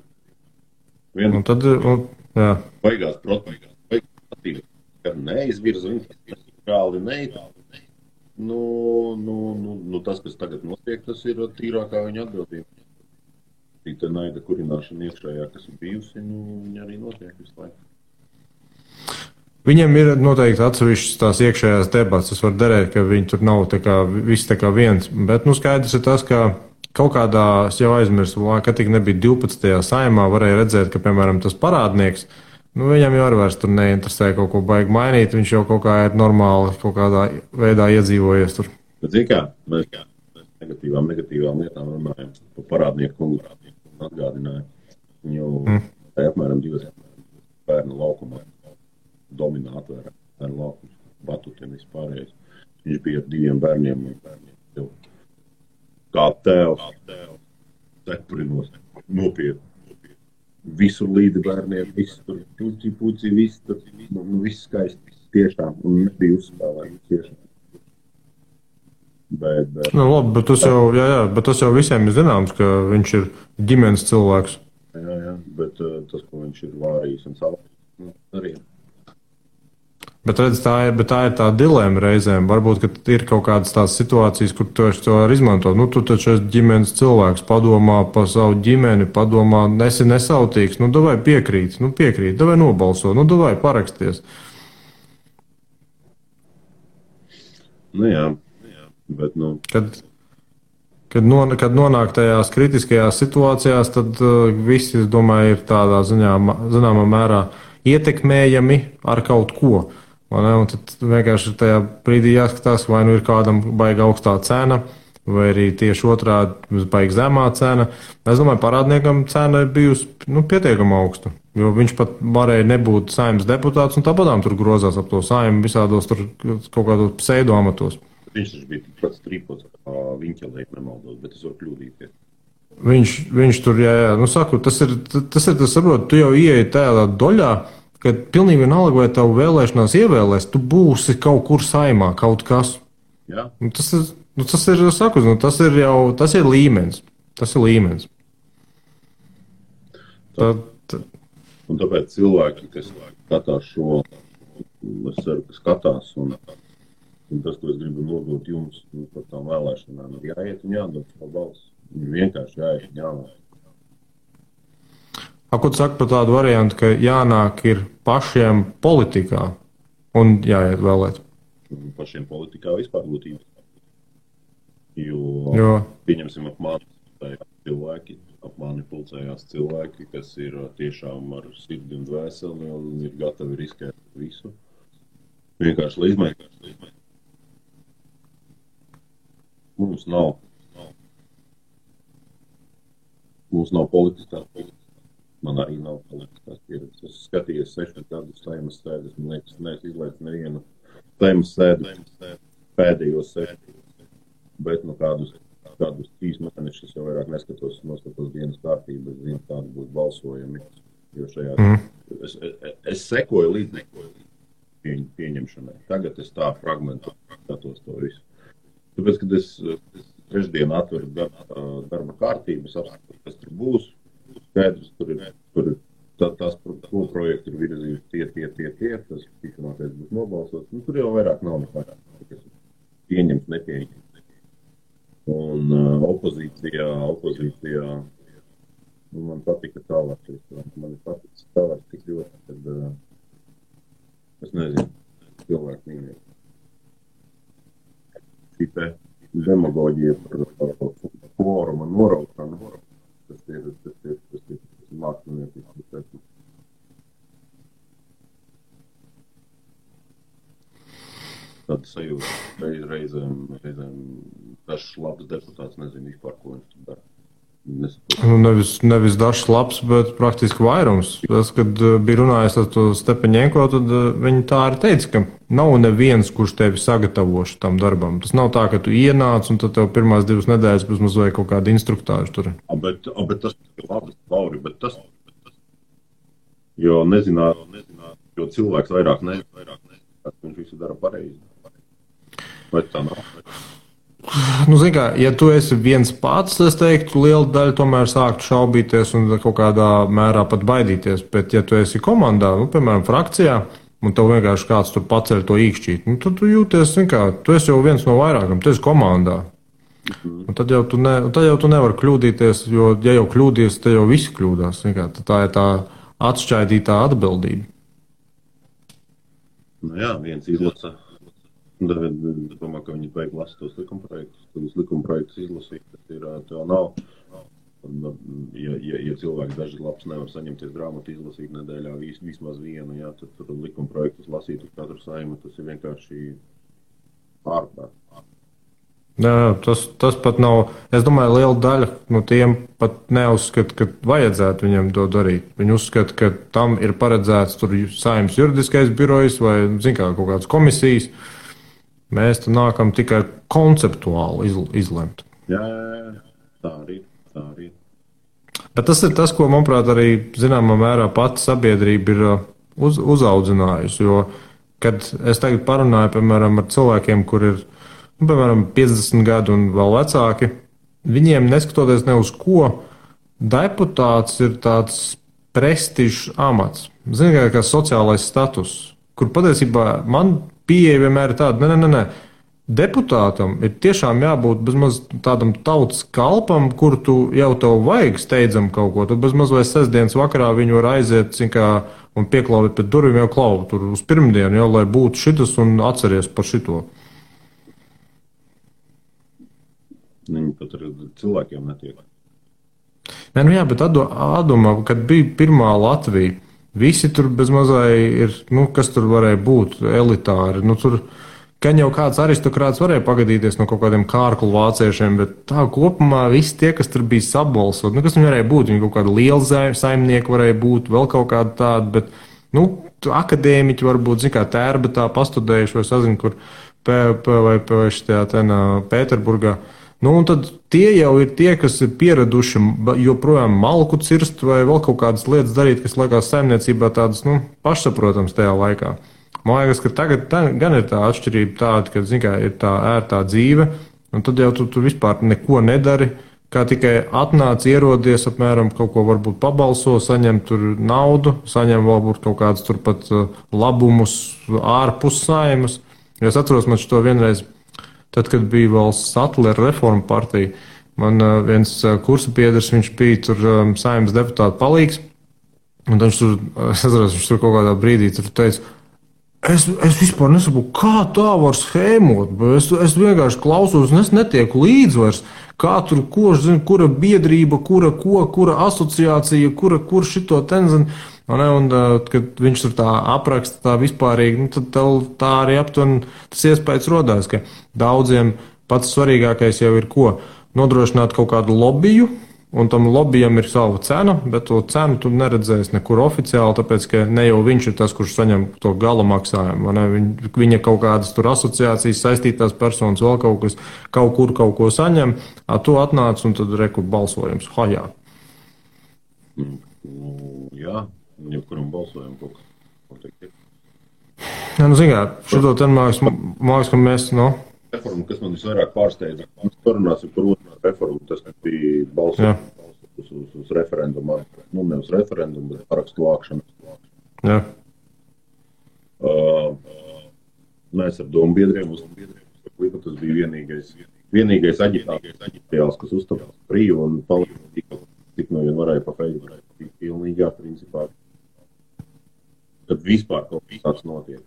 Un tad, jā. Baigās protams, kad neizvirza viņu, kāli neitāli. Tas, kas tagad notiek, tas ir tīrākā viņa atbildība. Tā naida kurināšana iekšējā, kas ir bijusi, viņa arī notiek visu laiku. Viņiem ir noteikti atsevišķas tās iekšējās debats. Es varu derēt, ka viņi tur nav viss tā kā viens. Bet skaidrs ir tas, ka kaut kādā, es jau aizmirsu, ka tik nebija 12. saimā, varēja redzēt, ka, piemēram, tas parādnieks, viņam jau arī vairs tur neinteresē kaut ko baigi mainīt. Viņš jau kaut kā ir normāli kaut kādā veidā iedzīvojies tur. Bet zini kā, mēs negatīvām lietām runājam par parādnieku atgādināja. Viņu apmēram 2 bērnu laukumā dominētu bērnu laukums, batutiem vispārējais. Viņš bija ar 2 bērniem kā tēvs, cepurinos, nopietni. Visur līdzi bērniem, viss tur, puci, viss tur, viss skaisti tiešām, un nebija uzspēlējums tiešām. Labi, bet tas jau visiem ir zināms, ka viņš ir ģimenes cilvēks. Jā, bet tas, ko viņš ir vārījis un savā arī. Bet redz, tā ir tā dilēma reizēm. Varbūt, ka ir kaut kādas tās situācijas, kur tu to var izmantot. Tu taču esi ģimenes cilvēks, padomā par savu ģimeni, padomā, esi nesautīgs, davai piekrīt, davai nobalso, davai paraksties. Jā. Bet, Kad nonāk tajās kritiskajās situācijās, tad visi, es domāju, ir tādā zināmā mērā ietekmējami ar kaut ko. Un tad vienkārši tajā brīdī jāskatās, vai ir kādam baigi augstā cena, vai arī tieši otrādi baigi zemā cena. Es domāju, parādniekam cena ir bijusi pietiekama augsta, jo viņš pat varēja nebūt saimnes deputāts, un tāpatām tur grozās ap to saimu visādos tur kaut kādos pseidoamatos. Viņš bija tikpat strīpots kā Viņķelē, nemaldos, bet es varu kļūdīties. Viņš tur, jā, saku, tas ir, saprot, tu jau ieeji tādā doļā, ka pilnīgi vienalga, vai tavu vēlēšanās ievēlēs, tu būsi kaut kur saimā, kaut kas. Jā. Tas ir, saku, tas ir līmenis. Tas ir līmenis. Un tāpēc cilvēki, kas skatās šo, es ceru, ka skatās, un tas, ko es gribu nodot jums par tām vēlēšanām, ir jāiet un jādod savu balsi. Vienkārši jāiet un jāvēl. Ko tu saki par tādu variantu, ka jānāk ir pašiem politikā un jāiet vēlēt? Pašiem politikā vispār būtībā. Jo pieņemsim ap mani pulcējās cilvēki, kas ir tiešām ar sirdi un dvēseli un ir gatavi riskēt visu. Vienkārši lai izmēģināt. Mums nav politiskās pieredzes. Man arī nav politiskās pieredzes. Es skatījos 6 gadus saimas sēdes, man liekas, neesmu izlaicis nevienu saimas sēdu pēdējos 6, bet kādus 3 mēnešus jau vairāk noskatos dienas kārtību, es zinu, kādi būs balsojumi, jo es sekoju līdz pieņemšanai. Tagad es tā fragmentu skatos to visu. Tāpēc, kad es trešdien atveru darba kārtību, es apskatos, kas tur būs, skaidrs, tur tās projekti ir virzīti tie, tas tikmākais būs nobalsots, tur jau vairāk nav nekā, kas pieņems, nepieņems. Un opozīcijā, man patika tālākais, man patika tālāk tik ļoti, kad, es nezinu, cilvēku mīnīgi. Šī te demagoģija par kvoruma noraukšanu, tas ir mākslinieks. Tad sajūta reizēm dažs labs deputāts nezinu vispār, ko viņš tur dara. Nevis dažs labs, bet praktiski vairums. Tas, kad bija runājis ar to Stepaņenko, tad viņi tā arī teica, ka nav neviens, kurš tevi sagatavoši tam darbam. Tas nav tā, ka tu ienāc un tad tev pirmās 2 nedēļas bez mazliet kaut kādu instruktāžu tur. Bet tas ir labi, Lauri, bet tas, jo nezināt, jo cilvēks vairāk nezina, viņš visu dara pareizi. Vai tā nav? Zini kā, ja tu esi viens pats, es teiktu, liela daļa tomēr sāktu šaubīties un kaut kādā mērā pat baidīties. Bet, ja tu esi komandā, piemēram, frakcijā, un tev vienkārši kāds tur paceļ to īkšķīt, tad tu jūties, zini kā, tu esi jau viens no vairākam, tu esi komandā. Un tad jau tu nevari kļūdīties, jo, ja jau kļūdies, tad jau visi kļūdās. Kā, tā ir tā atšķaidītā atbildība. Jā, viens izlasa. Es domāju, ka viņi beig lasa tos likumprojektus. Tad likumprojektus izlasīt, tas ir, tev nav. Ja cilvēks daži labs nevar saņemties grāmatu izlasīt nedēļā vismaz vienu, jā, tad tur likumprojektus lasīt uz katru saimu, tas ir vienkārši ārprāt. Jā, tas pat nav. Es domāju, liela daļa no tiem pat neuzskata, ka vajadzētu viņam to darīt. Viņi uzskata, ka tam ir paredzēts tur Saeimas juridiskais birojs vai, zin kā, kaut kādas komisijas. Mēs tu nākam tikai konceptuāli izlemt. Jā, tā arī. Bet tas ir tas, ko, manuprāt, arī zināmā mērā pati sabiedrība ir uzaudzinājusi. Jo, kad es tagad parunāju, piemēram, ar cilvēkiem, kur ir, piemēram, 50 gadu un vēl vecāki, viņiem neskatoties ne uz ko, deputāts ir tāds prestižs amats. Zini, kā sociālais status, kur patiesībā man pieeja vienmēr ir tāda, nē. Deputātam ir tiešām jābūt bezmaz tādam tautas kalpam, kur tu jau tev vajag steidzam kaut ko. Tad bezmaz vai sestdienas vakarā viņu var aiziet un pieklauvēt pēc durvīm jau klauvu tur uz pirmdienu, jau, lai būtu šitas un atceries par šito. Viņi pat ar cilvēkiem netiek. Nē, jā, bet atdomā, kad bija pirmā Latvija, visi tur bezmazai ir, kas tur varēja būt elitāri. Tur gan jau kāds aristokrāts varēja pagadīties no kaut kādiem kārklu vāciešiem, bet tā kopumā visi tie, kas tur bija sabalsot, kas viņi varēja būt, viņi kaut kādi lieli saimnieki varēja būt, vēl kaut kādi tādi, bet, akadēmiķi varbūt, zin kā Tērbetā pastudējuši, vai sazinu, kur vai šajā Pēterburgā. Nu, un tad tie jau ir tie, kas ir pieraduši joprojām malku cirst vai vēl kaut kādas lietas darīt, kas liekas saimniecībā tādas, pašsaprotams tajā laikā. Man liekas, ka tagad gan ir tā atšķirība tāda, ka, zin kā, ir tā ērtā dzīve, un tad jau tu vispār neko nedari, kā tikai atnāc, ierodies, apmēram kaut ko varbūt pabalso, saņem tur naudu, saņem varbūt kaut kādus turpat labumus ārpus saimas. Es atceros, man šo vienreiz, tad, kad bija vēl Satlera reforma partija, man viens kursa biedrs, viņš bija tur saimnes deputāta palīgs, un viņš tur kaut kādā brīdī tur teica, es vispār nesaprotu, kā tā var schēmot, es vienkārši klausos, un es netieku līdz vairs, kā tur, kura biedrība, kura asociācija, kur šito tenzina. Un, kad viņš tur tā apraksta tā vispārīgi, tad tā arī aptuveni tas iespējas rodās, ka daudziem pats svarīgākais jau ir ko? Nodrošināt kaut kādu lobiju, un tam lobijam ir sava cena, bet to cenu tu neredzēsi nekur oficiāli, tāpēc, ka ne jau viņš ir tas, kurš saņem to gala maksājumu. Viņa kaut kādas tur asociācijas, saistītās personas, vēl kaut kas, kaut kur kaut ko saņem, tu atnāc un tad reku balsojums. Hajā. Jā. Jebkuram balsojam kaut kas noteikti. Jā, zin kā, šito ten māks, ka mēs, Reforma, kas man visvairāk pārsteidza, mēs parunāsim par otru reformu, tas bija balsojums uz referendumu, nevis referendumu, bet parakstu vākšanu. Jā. Mēs ar domu biedriem tas bija vienīgais aģitācijas, kas uzstāpās brīvi un palīdzīja, tik no vien varēja pa Facebook. Pilnīgā principā. Kad vispār kaut kas tāds notiek.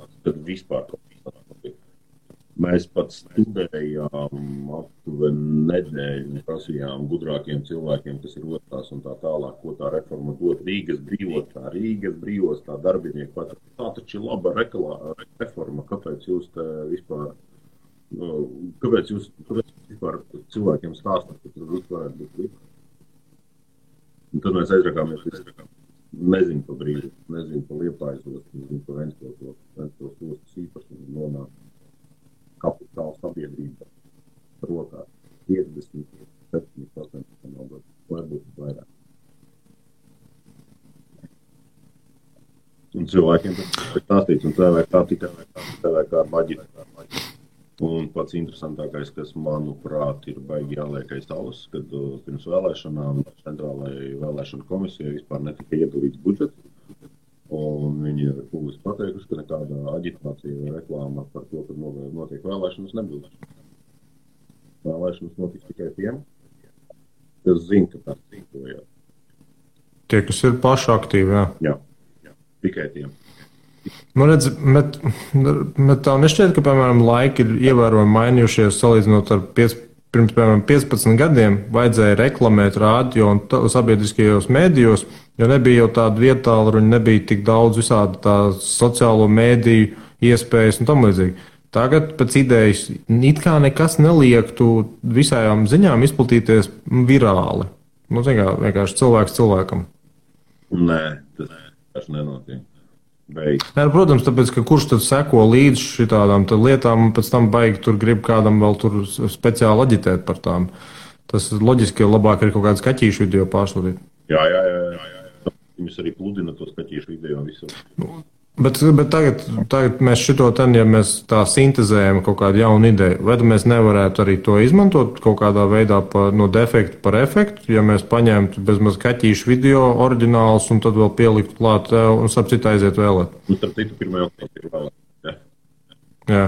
Mēs pat studējām aptuveni nedēļu, prasījām gudrākiem cilvēkiem, kas ir otrās un tā tālāk, ko tā reforma dod Rīgas brīvos, tā darbinieku pat. Tā taču ir laba reforma, kāpēc jūs te vispār, kāpēc jūs vispār cilvēkiem stāstāt, ka tur vispār varētu būt likums. Un tad mēs aizrakāmies, nezinu pa brīdi, nezinu pa Liepājas ostu, nezinu pa Ventspils ostas īpašumu, nonāk kapitāla sabiedrība rokā 50-70%, varbūt vairāk. Un cilvēkiem tas ir stāstīts, un tev ir kā maģita. Un pats interesantākais, kas, manuprāt, ir baigi jāliek aiz auss, kad pirms vēlēšanām centrālajai vēlēšanu komisijai vispār netika iedalīts budžets. Un viņi ir publiski pateikuši, ka nekāda aģitācija vai reklāma par to, kad notiek vēlēšanas, nebūs. Vēlēšanas notiks tikai tiem, kas zina, ka tā rīkojās. Tie, kas ir paši aktīvi, jā. Jā, tikai tiem. Redz, bet tā nešķiet, ka, piemēram, laiki ir ievērojami mainījušies salīdzinot ar pirms, piemēram, 15 gadiem vajadzēja reklamēt radio un sabiedriskajos mēdījos, jo nebija jau tāda vietāluruņa, nebija tik daudz visādi tā sociālo mēdīju iespējas un tam līdzīgi. Tagad pēc idejas it kā nekas neliektu visām ziņām izplatīties virāli. Vienkārši cilvēks cilvēkam. Nē, tas nenotiek. Nē, protams, tāpēc, ka kurš tad seko līdz šitādām lietām un pēc tam baigi tur grib kādam vēl tur speciāli aģitēt par tām. Tas loģiski, ka labāk ir kaut kāds kaķīšu video pārsūtīt. Jā. Viņus arī pludina tos kaķīšu video visur. Bet tagad mēs šito ten, ja mēs tā sintezējam kaut kādu jaunu ideju, vai mēs nevarētu arī to izmantot kaut kādā veidā no defekta par efektu, ja mēs paņemtu bezmaz kaķīšu video oriģinālus un tad vēl pieliktu klāt un starp citu aiziet vēlēt. Starp citu, 1. oktobrī ir vēlēt. Jā.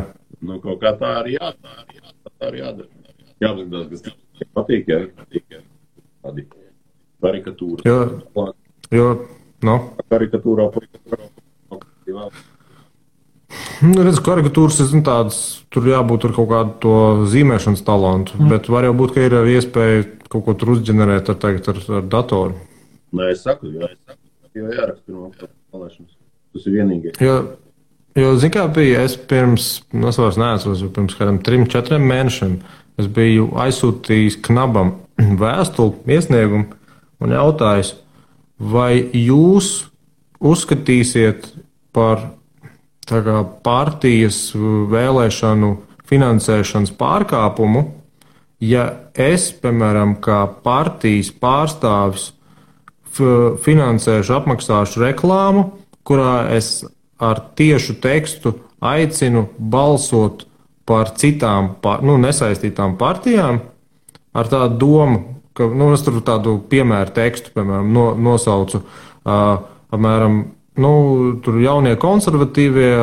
Kaut kā tā arī jādara. Jāapzinās, kas patīk, tādi karikatūra. Karikatūrā. Redz, karikatūras ir tādas, tur jābūt ar kaut kādu to zīmēšanas talantu, bet var jau būt, ka ir arī iespēja kaut ko tur uzģenerēt ar datoru. Nē, es saku, jo jāraksta no vēlēšanas. Tas ir vienīgais. Jo zin kā bija, es vairs neatceros, pirms kādiem 3-4 mēnešiem es biju aizsūtījis Knabam vēstuli iesniegumu un jautājis, vai jūs uzskatīsiet par partijas vēlēšanu finansēšanas pārkāpumu, ja es, piemēram, kā partijas pārstāvis finansēšu, apmaksāšu reklāmu, kurā es ar tiešu tekstu aicinu balsot par citām, nesaistītām partijām, ar tādu domu, ka, es tur tādu piemēru tekstu, piemēram, nosaucu, apmēram, tur jaunie konservatīvie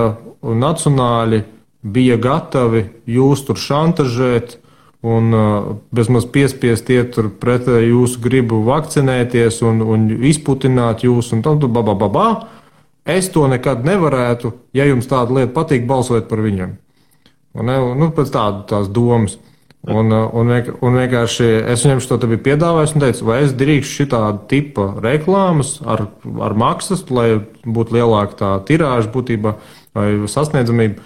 un nacionāļi bija gatavi jūs tur šantažēt un bezmaz piespiest iet tur pretēji jūsu gribu vakcinēties un izputināt jūs un tam, Es to nekad nevarētu, ja jums tāda lieta patīk, balsot par viņiem. Pēc tās domas. Un vienkārši es viņam šo te biju piedāvājis un teicu, vai es drīkšu šitādu tipa reklāmas ar maksas, lai būtu lielāka tā tirāža būtībā vai sasniedzamība,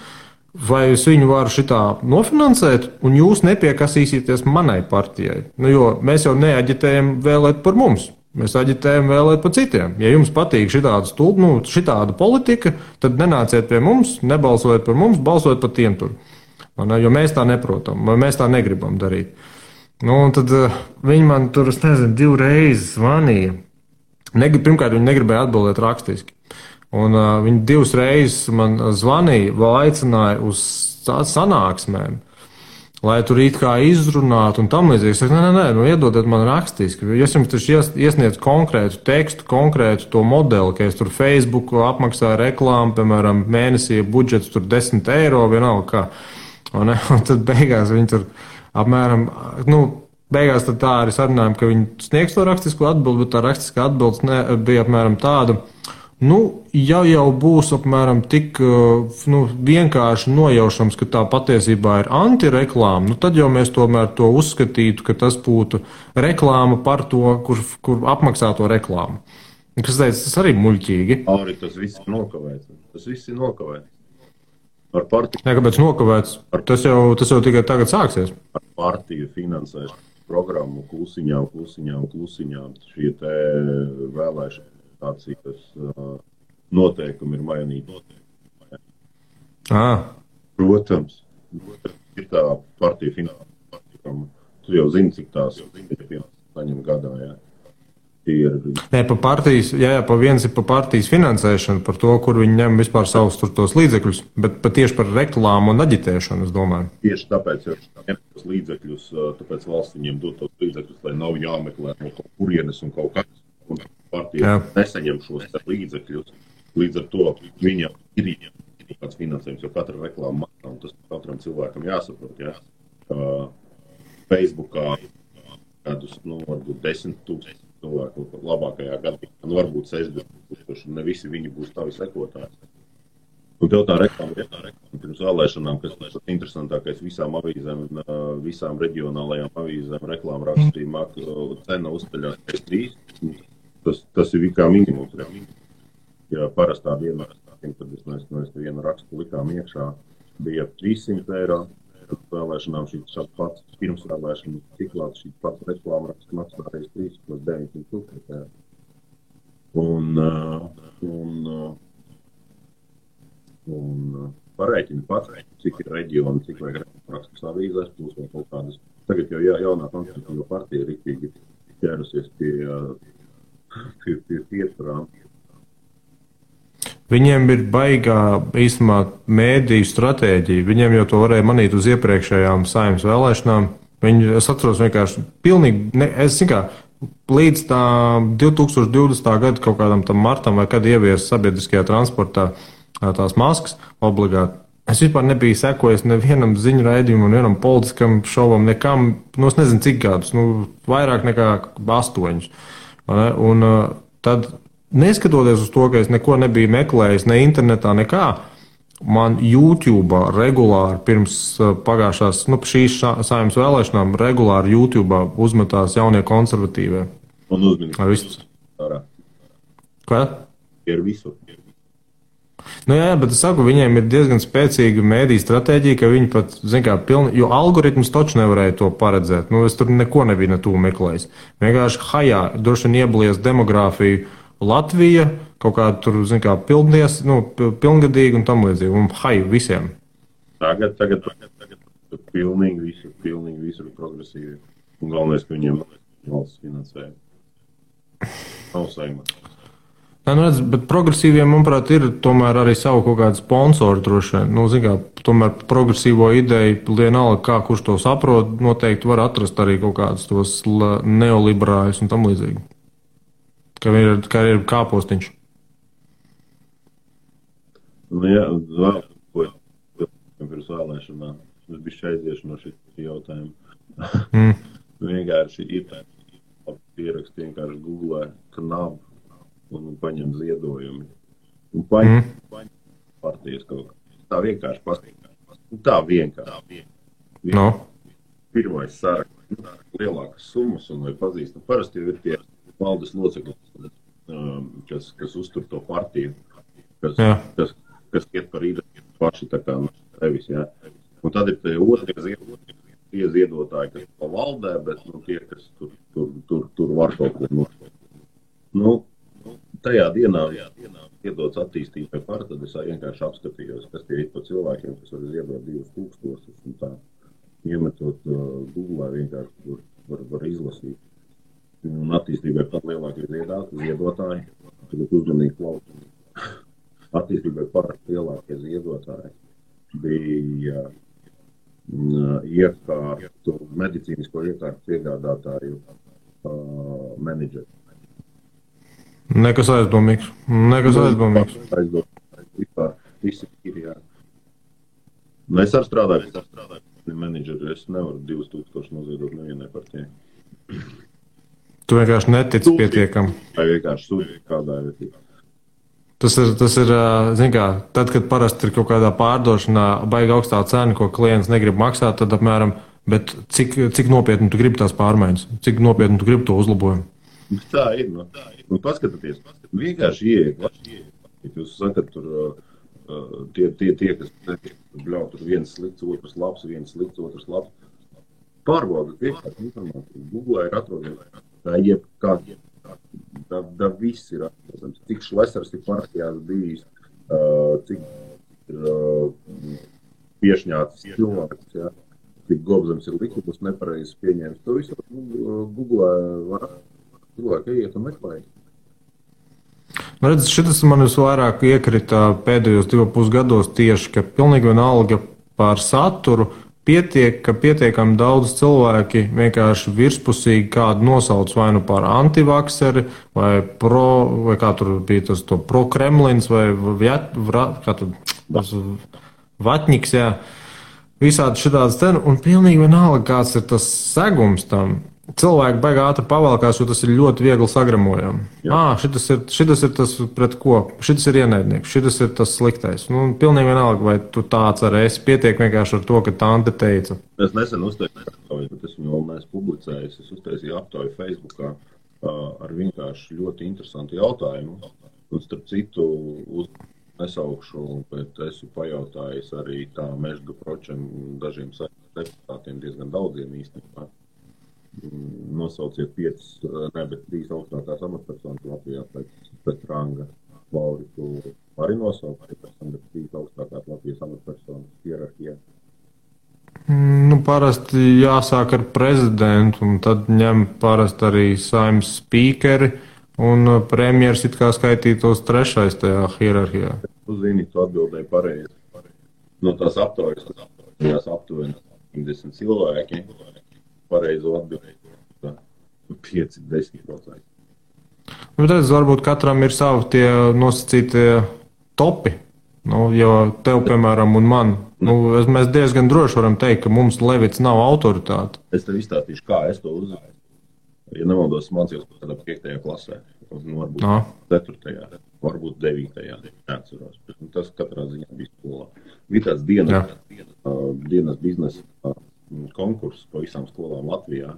vai es viņu varu šitā nofinansēt un jūs nepiekasīsieties manai partijai. Jo mēs jau neaģitējam vēlēt par mums. Mēs aģitējam vēlēt par citiem. Ja jums patīk šitāda politika, tad nenāciet pie mums, nebalsojiet par mums, balsojiet par tiem tur. Jo mēs tā neprotam, vai mēs tā negribam darīt. Un tad viņi man tur, es nezinu, 2 reizes zvanīja. Pirmkārt, viņi negribēja atbildēt rakstiski. Un viņi 2 reizes man zvanīja, vēl aicināja uz sanāksmēm, lai tur it kā izrunātu un tam līdzīgi. Es saku, nē, iedodiet man rakstiski. Es jums taču iesniedzu konkrētu tekstu, konkrētu to modeli, ka es tur Facebook apmaksāju reklāmu, piemēram, mēnesī budžets tur 10 eiro, vienalga kā. Un tad beigās viņi tur apmēram, beigās tad tā arī sarunājām, ka viņi sniegs to rakstisku atbildi, bet tā rastiskā atbildes bija apmēram tāda, ja jau būs apmēram tik vienkārši nojaušams, ka tā patiesībā ir antireklāma, tad jau mēs tomēr to uzskatītu, ka tas būtu reklāma par to, kur apmaksā to reklāmu. Kas teica, tas arī muļķīgi. Arī tas viss ir nokavēts. Tas viss ir nokavēts. Ar partiju. Nē, kāpēc nokavēts? Tas jau tikai tagad sāksies. Ar partiju finansēšu programmu klusiņām. Šie te vēlēšana noteikumi ir mainīti. Protams, ir tā partija finansējuma. Tu jau zini, cik tās saņem gadā. Jā. Nē, pa viens ir pa partijas finansēšanu, par to, kur viņi ņem vispār savus tos līdzekļus, bet tieši par reklāmu un aģitēšanu, es domāju. Tieši tāpēc ir tos līdzekļus, tāpēc valsts viņiem dod tos līdzekļus, lai nav jāmeklē no kaut kurienes un kaut kas. Un partija nesaņem šos līdzekļus, līdz ar to viņam ir kāds finansējums, jo katra reklāma maksā, un tas katram cilvēkam jāsaprot, jā. Facebookā kādus, varbūt 10,000 cilvēku labākajā gadījumā, varbūt 60,000, un ne visi viņi būs tavi sekotāji. Un tev tā reklāma pirms vēlēšanām, kas ir interesantākais visām avīzēm, visām reģionālajām avīzēm, reklāma rakstījumā, cena uzceļās pēc 3. Tas ir kā minimums. Ja parastā dienā, kad mēs vienu rakstu likām iekšā, bija 300 eiro. Vēlēšanām šīs pats pirms vēlēšanas ciklāts, šīs pats reklāma raksts maksā reiz 3 plus 900 eiro. Un pareiķini pats, cik ir reģioni, cik vajag rakstus avīzēs, plus vēl kaut kādas. Tagad jau jaunā konservatīva partija riktīgi ķērusies pie piesprām. Viņiem ir baigā īstenībā mēdīju stratēģija. Viņiem jau to varēja manīt uz iepriekšējām Saeimas vēlēšanām. Es atceros vienkārši pilnīgi, līdz tā 2020. gada kaut kādam tam martam vai kad ievies sabiedriskajā transportā tās maskas obligāti. Es vispār nebiju sekojis nevienam ziņu raidījumam, nevienam politiskam šovam, nekam, es nezinu cik gadus, vairāk nekā 8. Un tad, neskatoties uz to, ka es neko nebiju meklējis, ne internetā, nekā, man YouTube regulāri pirms pagājušās, šīs Saeimas vēlēšanām regulāri YouTube uzmetās jaunie konservatīvie. Un uzmanības. Kā? Ir visu. Jā, bet es saku, viņiem ir diezgan spēcīga mēdīja stratēģija, ka viņi pat, jo algoritmus taču nevarēja to paredzēt. Es tur neko nebiju netū meklējis. Vienkārši droši vien ieblies demogrāfiju Latvija, kaut kāda tur, pilngadīgi un tam līdzīgi. Un visiem. Tagad pilnīgi visur progresīvi. Un galvenais, ka viņiem valsts finansēja. Nav saimā. Jā, nu redz, bet progresīviem, manuprāt, ir tomēr arī savu kaut kādu sponsoru droši vien. Nu, zin kā, tomēr progresīvo ideju, vienalga, kā kurš to saprot, noteikti var atrast arī kaut kādus tos neoliberāļus un tam līdzīgi. Kā ir kāpostiņš. Nu jā, vēl ko pirms vēlēšanām. Es biju aiziešu no šī jautājuma. Vienkārši ir pierakst, vienkārši googlē KNAB un paņem ziedojumi. Un paņem partijas kaut kā. Tā vienkārši pastīkās. Tā vienkārši. No. Pirmais saraksts, lielākas summas un vai pazīst. Parasti jau ir tie valdes locekļi, kas uztur to partiju, kas iet par īdu paši tā kā nevis, jā. Un tad ir tie otrie ziedotāji, kas pa valdē, bet tie, kas tur var kaut ko nošķirt. Nu, tajā dienā iedots attīstībai par, tad es vienkārši apskatījos, kas tie ir pa cilvēkiem, kas var ziedot 2000 un tā. Iemetot Google vienkārši var izlasīt. Un attīstībai pat lielākie ziedotāji, tagad uzmanīgi klausīt. Attīstībai par lielākie ziedotāji bija iekārtu, medicīnisko iekārtu piegādātāju menedžeri. Nekas aizdomīgs. Vispār visi ir, jā. Es arī strādāju menedžeri, es nevaru 2000 noziedot nevienai partijai. Tu vienkārši netici pietiekam. Vai vienkārši sūdzi kādā vietā. Tas ir, zin kā, tad, kad parasti ir kaut kādā pārdošanā baigi augstā cena, ko klients negrib maksāt, tad apmēram, bet cik nopietni tu gribi tās pārmaiņas, cik nopietni tu gribi to uzlabojumu. Tā ir, Nu, paskatieties, vienkārši ieiet. Jūs sakat, tur tie kas bļauj, tur viens slikts, otrs labs, viens slikts, otrs labs. Pārbaudat vienkārši informāciju. Google ir atrodams. Tā viss ir atrodams. Cik šlesars ir partijās bijis, cik ir piešņāts cilvēks, ja? Cik gobzams ir likumus nepareizes pieņēmis. To visu Google var cilvēki iet un meklēt. Nu, redz, šitas man visvairāk iekrita pēdējos 2,5 gados tieši, ka pilnīgi vienalga par saturu ka pietiekami daudz cilvēki vienkārši virspusīgi kādu nosauc vai nu par antivakseri, vai kā tur bija tas to pro-Kremlins, vai vatņiks, jā. Visādi šitādas ten, un pilnīgi vienalga, kāds ir tas segums tam. Cilvēki baigā ātri pavalkās, jo tas ir ļoti viegli sagramojami. Šitas ir tas pret ko, šitas ir ienaidnieks, šitas ir tas sliktais. Nu, pilnīgi vienalga, vai tu tāds arī esi, pietiek vienkārši ar to, ka tante teica. Es nesen uztaisīju aptauju, bet esmu vēl neesmu publicējis. Es uztaisīju aptauju Facebookā ar vienkārši ļoti interesantu jautājumu. Un starp citu nesaukšu, bet esmu pajautājis arī tā Mežga Pročam dažiem deputātiem, diezgan daudziem īstenībā. Nosauciet 5, bet 3 augstākās amatpersonas Latvijā pēc ranga. Lauri, tu vari nosaukt, bet 3 augstākās Latvijas amatpersonas hierarhijā? Nu, parasti jāsāk ar prezidentu, un tad ņem parasti arī saimnes spīkeri, un premjeras it kā skaitītos 3. tajā hierarhijā. Tu zini, tu atbildēji pareizi. No tās aptaujas, tas aptuveni 50 cilvēki. Pareizo atbildēt 5-10%. Nu, redz, varbūt katram ir savi tie nosacītie topi. Nu, jo tev, piemēram, un man, mēs diezgan droši varam teikt, ka mums Levits nav autoritāte. Es tev izstāstīšu, kā es to uzzināju. Ja nemaldos, mācījos kādā 5. klasē, varbūt 4. varbūt 9. neatceros. Tas katrā ziņā bija skolā. Bija tāds dienas biznesa konkurss pa visām skolām Latvijā,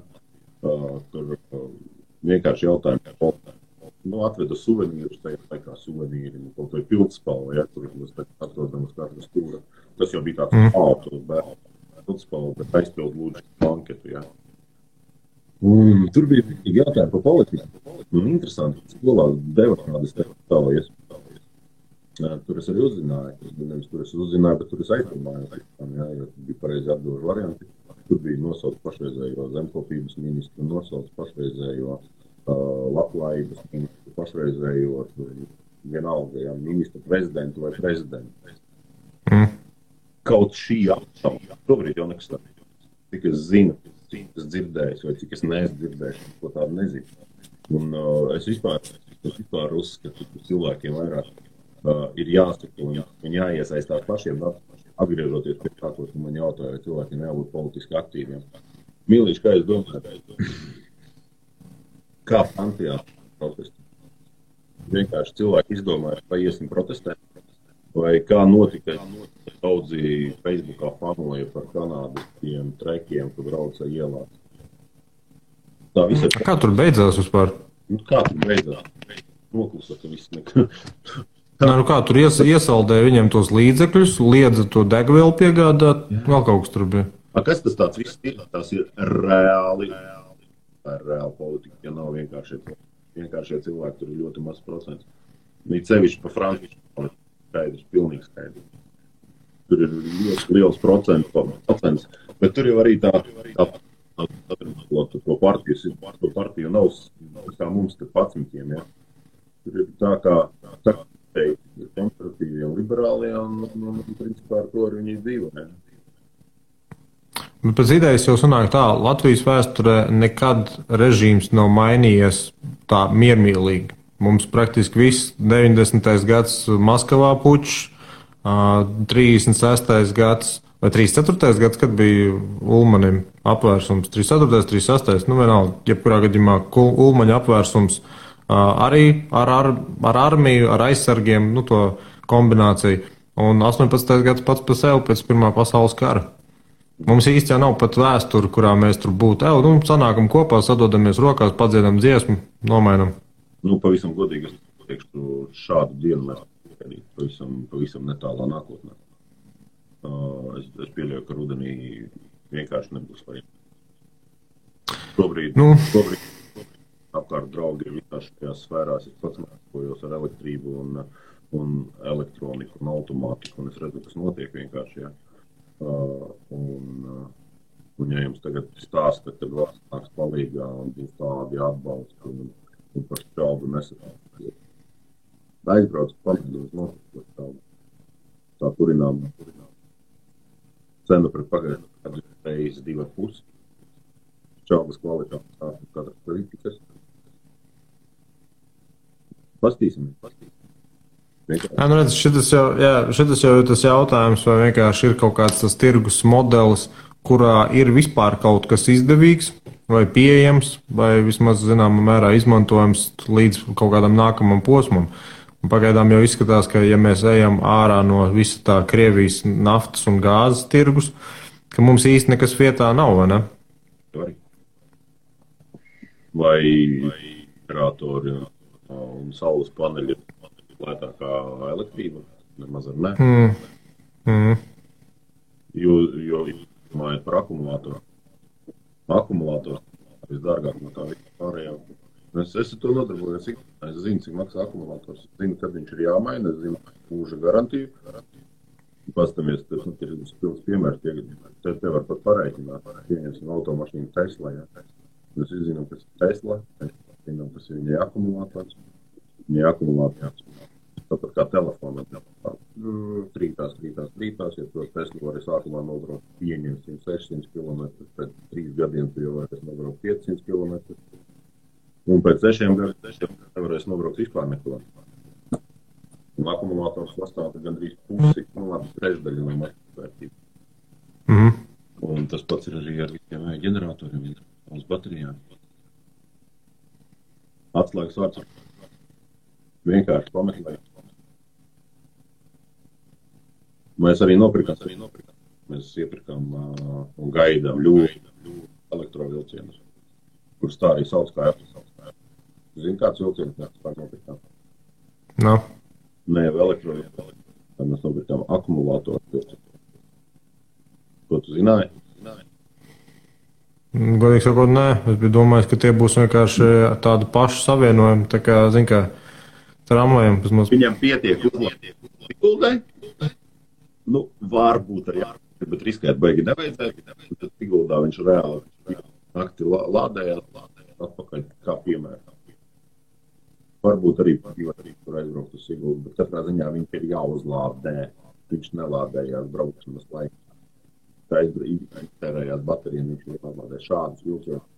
kur vienkārši jautājumu atveda suvenīrus, tajā laikā suvenīri, kaut vai pildspalva, ja, kur mēs atrodam uz katru stūra. Tas jau bija tāds autos bērnu pildspalva, bet aizpild lūdzu banketu, ja. Un tur bija jautājumi par politiku. Un interesanti, ka skolā deva kādas tālājies. Tur es arī uzzināju, bet tur es aizdomājos, ja, jo bija pareizi atbilžu varianti. Tur bija nosaukt pašreizējo zemkopības ministru, nosaukt pašreizējo labklājības ministru, pašreizējo vienalga, ja, ministru prezidentu vai prezidentu. Kaut šī apšauba, šobrīd jau nekas tāds. Cik es zinu, cik es dzirdēju, vai cik es neesmu dzirdējuši, ko tādu nezinu. Un es vispār uzskatu, ka cilvēkiem vairāk ir jāsaka un jāiesaistās pašiem, atgriežoties pie tā, ko man jautāja, vai cilvēkiem jābūt politiski aktīviem. Mīlīši, kā es domāju, kā Francijā protesti? Vienkārši cilvēki izdomāja, vai iesim protestēt, vai kā notika, daudzi Facebookā fanoja par kanādistiem trekiem, kur brauca ielās. Tā visa... Kā tur beidzās vispār? Kā tur beidzās? Noklusa, ka viss nekā. Kā tur iesaldēja viņiem tos līdzekļus, liedza to degvielu piegādāt, vēl kaut kas tur bija. Kas tas tāds viss ir? Tas ir reāli politika, ja nav vienkāršie cilvēki, tur ir ļoti maz procents. Viņi sevišķi pa Franciju skaidrs, pilnīgi skaidrs. Tur ir ļoti liels procents, bet tur jau arī tā partiju nav kā mums te 11, ja. Tur ir tā kā ir konservatīvi un liberāli, un principā ar to arī viņi dzīvo, ne? Bet pēc idejas jau sanāk tā, Latvijas vēsturē nekad režīms nav mainījies tā miermīlīgi. Mums praktiski viss 90. gads Maskavā pučs, 36. gads vai 34. gads, kad bija Ulmanim apvērsums, 34. 36. Vienalga, jebkurā gadījumā Ulmaņa apvērsums arī ar armiju, ar aizsargiem, to kombināciju. Un 18. gads pats pa sevi pēc Pirmā pasaules kara. Mums īsti jau nav pat vēsture, kurā mēs tur būtu. Sanākam kopā, sadodamies rokās, padziedam dziesmu, nomainam. Pavisam godīgi, es teikšu, šādu dienu mēs pavisam netālā nākotnē. Es pieļauju, ka rudenī vienkārši nebūs varianti. Šobrīd apkārt draugi ir visās šajās sfērās. Es pats mācījos ar elektrību un elektroniku un automātiku, un es redzu, kas notiek vienkārši, ja. Un ja jums tagad stāsta, tad valsts nāks palīgā un būs tādi atbalsti un par šaubu nesat. Aizbrauc pamēģināt notikt tā kurinām. Cena pret pagājušo reizes 2,5. Šaubas kvalitātes stāsta katras politikas. Pastīsimies. Redz, šitas jau ir tas jautājums, vai vienkārši ir kaut kāds tas tirgus modelis, kurā ir vispār kaut kas izdevīgs vai pieejams, vai vismaz zināmā mērā izmantojams līdz kaut kādam nākamam posmam. Un pagaidām jau izskatās, ka ja mēs ejam ārā no visa tā Krievijas naftas un gāzes tirgus, ka mums īsti nekas vietā nav, vai ne? Vai generatori un saules paneļi lētākā elektrība, nemaz ar ne. Jo domājot par akumulātoru. Akumulātors visdārgāk no tā visu pārējā. Es ar to nodarbojos, es zinu, cik maksā akumulators. Es zinu, kad viņš ir jāmaina, es zinu mūža garantiju. Pastamies, tas ir pilns piemērs, te var pat pareiķināt. Pieņemsim automašīnu Tesla, ja. Mēs zinām, kas ir Tesla, mēs zinām, kas ir viņai akumulators. Viņai akumulators. Tāpat kā telefona. Trītās, ja to Tesla var sākumā nobraukt pieņemsim 600 km, pēc 3 gadiem tu jau varēs nobraukt 500 km. Un pēc 6 gadiem nevarēs nobraukt vispār neko. Un akumulators sastāv gandrīz pusi, trešdaļa no vērtības. Un tas pats ir arī ar visiem ģeneratoriem, uz baterijām. Atslēgas vārds vienkārši pameklēt. Mēs arī nopirkām. Mēs iepirkām un gaidām ļoti elektrovilcienus, kurus tā arī sauc kā Zini, kāds vilciens mēs tā nopirkām? No. Nē, elektrovilcienus. Tā mēs nopirkām akumulātoru vilcienu. Ko tu zināji? Godīgi sakot, nē. Es biju domājis, ka tie būs vienkārši tādi paši savienojumi. Tā kā, zin kā, tramvajiem. Viņam pietiek uzlabot Sigultai. Nu, varbūt arī, bet riskēt baigi nevajadzētu. Tad Siguldā viņš reāli nakti lādējās atpakaļ kā piemēram. Varbūt arī tur aizbraukt uz Siguldu, bet katrā ziņā viņš ir jāuzlādē. Viņš nelādējās braukšanas laikā. Tā iztērējās baterijām, viņš nelādē šādus vilcienus.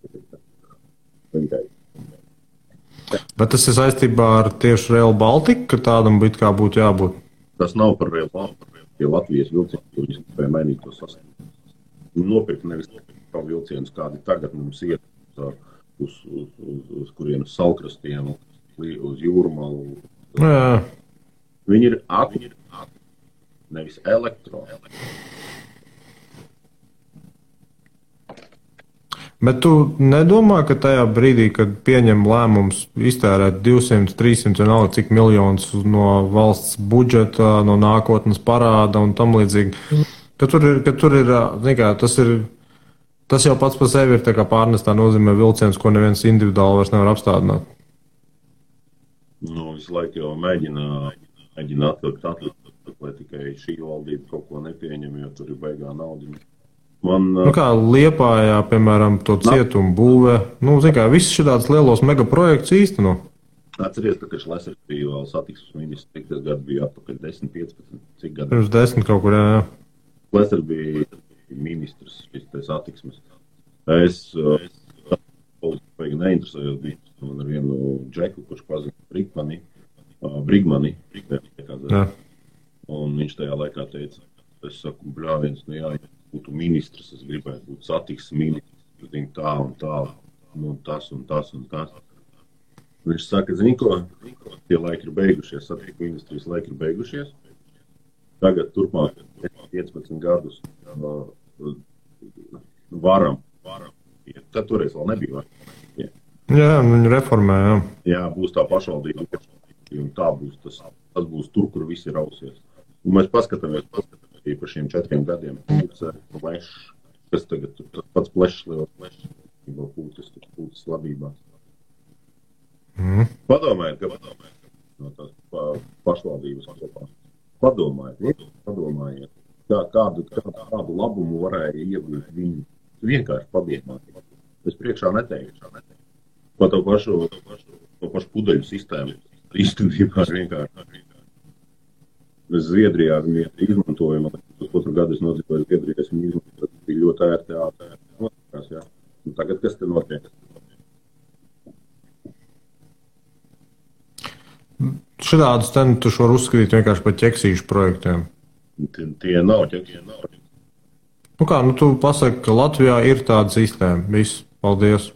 Bet tas ir saistībā ar tieši Rail Baltica, ka tādam būtu jābūt? Tas nav par Rail Baltica, tie Latvijas vilcieni, kur viņi spēja mainīt to sastāvu. Nopirkt nevis vilcienus, kādi tagad mums iet uz kurienes salkrastiem, uz jūrmalu. Jā. Viņi ir nevis elektro. Bet tu nedomā, ka tajā brīdī, kad pieņem lēmums iztērēt 200, 300 vienalga cik miljonus no valsts budžeta, no nākotnes parāda un tam līdzīgi, ka tur ir, tas jau pats par sevi ir tā kā pārnestā nozīmē vilciens, ko neviens individuāli vairs nevar apstādināt? Nu, visu laiku jau mēģina atlikt, lai tikai šī valdība kaut ko nepieņem, jo tur ir baigā naudiņa. Kā Liepājā, piemēram, to cietumu būvē, viss šitādus lielos megaprojektus īsteno. Atceries, ka Šlesers bija vēl satiksmes ministrs, cik tas gadu bija atpakaļ 10, 15, cik gadu? Pirms 10 kaut kur, jā. Šlesers bija ministrs, šis satiksmes. Es politiski neinteresējos, bija man ar vienu džeku, kurš pazina Brigmani. Un viņš tajā laikā teica, es saku, bļāviens, ja būtu ministrs, es gribētu būt satiksmes ministrs, tā un tā, tas un tas un tas. Viņš saka, zini ko, tie laiki ir beigušies, satiksmes ministrijas laiki ir beigušies. Tagad turpmāk 15 gadus varam. Tad toreiz vēl nebija varam. Jā, viņi reformē, jā. Jā, būs tā pašvaldība, un tā būs, tas būs tur, kur visi rausies. Un mēs paskatāmies par šiem 4 gadiem. Kas tagad tas pats plešs, liels plešs, pūtas labībās. Padomājiet no tās pašvaldības kopā. Padomājiet. Kādu labumu varēja iegūt viņi. Vienkārši padomājiet. Es priekšā neteikšu. Pa to pašu pudeļu sistēmu. Īstenībā vienkārši. Mēs Zviedrijā viņu izmantojam. Uz 4 gadu es nodzīvoju Zviedrijā, es viņu izmantoju. Tas bija ļoti ērti. Tagad kas te notiek? Šādus tu var uzskatīt vienkārši par ķeksīšu projektiem. Tie nav ķeksīši. Tu pasaki, ka Latvijā ir tāda sistēma. Viss, paldies.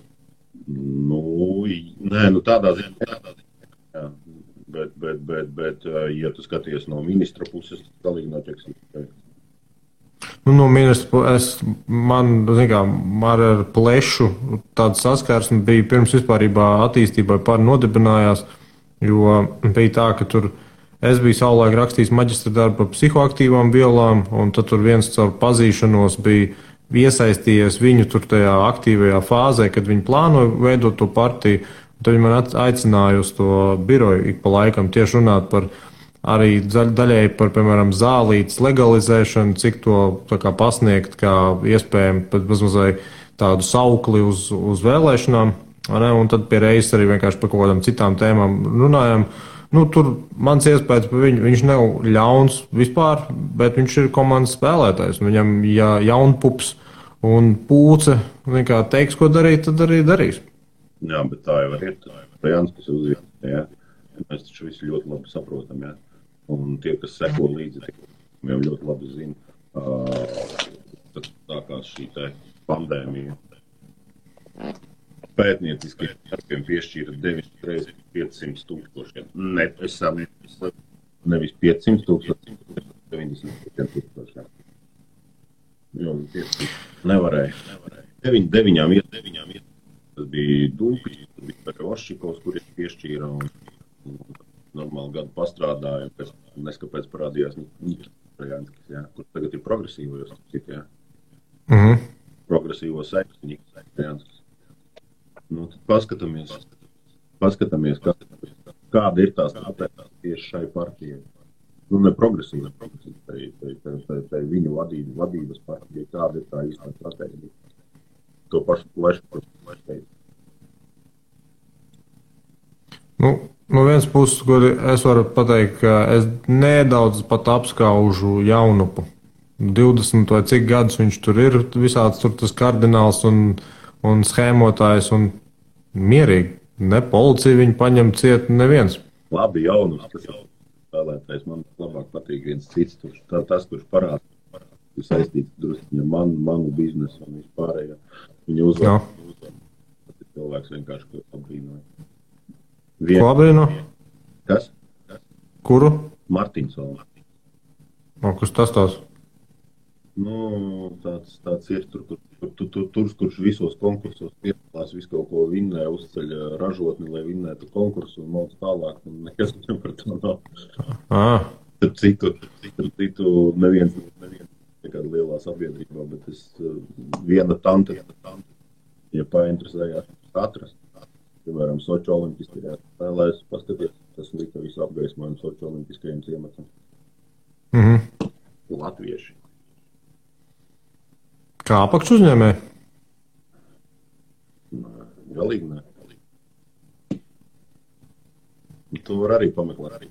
Tādā ziņā. Jā. Bet, ja tu skaties no ministra puses, tas galīgi nav ķeksīši. No ministra man ar plešu tāda saskarsme bija pirms vispārībā attīstībai nodibinājās, jo bija tā, ka tur es biju savulaik rakstījis maģistra darbu par psihoaktīvām vielām, un tad tur viens caur pazīšanos bija iesaistījies viņu tur tajā aktīvajā fāzē, kad viņi plānoja veidot to partiju. Tad viņi man aicināja uz to biroju ik pa laikam tieši runāt par arī daļēji par, piemēram, zālītes legalizēšanu, cik to pasniegt kā iespējami pat mazliet tādu saukli uz vēlēšanām. Un tad pie reizes arī vienkārši par kaut kādām citām tēmām runājam. Tur mans iespējas par viņu, viņš nav ļauns vispār, bet viņš ir komandas spēlētājs. Viņam, ja jaunpups un pūce teiks, ko darīt, tad arī darīs. Jā, bet tā jau ir. Tā Jānis, kas uzviet, jā. Mēs taču visi ļoti labi saprotam, jā. Un tie, kas seko līdzi, jau ļoti labi zina, kad sākās šī pandēmija. Pētnieciskiem darbiem piešķīra 9,500,000. Nevis 500,000, 90,000. Jo nevarēja. 9 tas bija Dūpis, tas bija Peroščikovs, kurš piešķīra un normāli gadu pastrādāja, pēc neskapēc parādījās Nikitrajanskis, kur tagad ir progresīvos, jā. Progresīvo seksu Nikitrajanskis. Tad paskatāmies, kāda ir tā stratēģija tieši šai partijai. Nu, ne progresīva, tai viņu vadības partijai, kāda ir tā īstā stratēģija. To pašu plešu teicu. No vienas puses, kur es varu pateikt, ka es nedaudz pat apskaužu Jaunupu. 20 vai cik gadus viņš tur ir, visāds tur tas kardināls un schēmotājs un mierīgi. Ne policija viņu paņem ciet neviens. Labi, Jaunups, tas ir spēlētājs. Man labāk patīk viens cits. Tas, kurš parāda, ir saistīts drusciņa manu biznesu un vispārējo. Viņa uzvar. Tas ir cilvēks vienkārši, ko apbrīnoja. Ko apbrīno? Kas? Kuru? Martinsons. Kas tas tās? Nu, tāds ir kurš visos konkursos piedalās, visu kaut ko vinnē, uzceļ ražotni, lai vinnētu konkursu un mūs tālāk, un nekas par to nav. Citu neviens nekāda lielā sabiedrībā, bet viena tante, ja painteresējās atrast. Piemēram, Soči olimpiskajā spēlēs, paskaties, tas lika visu apgaismojumu Soči olimpiskajiem ciematam. Latvieši. Kā apakš uzņēmēji? Galīgi ne. Tu var arī pameklēt.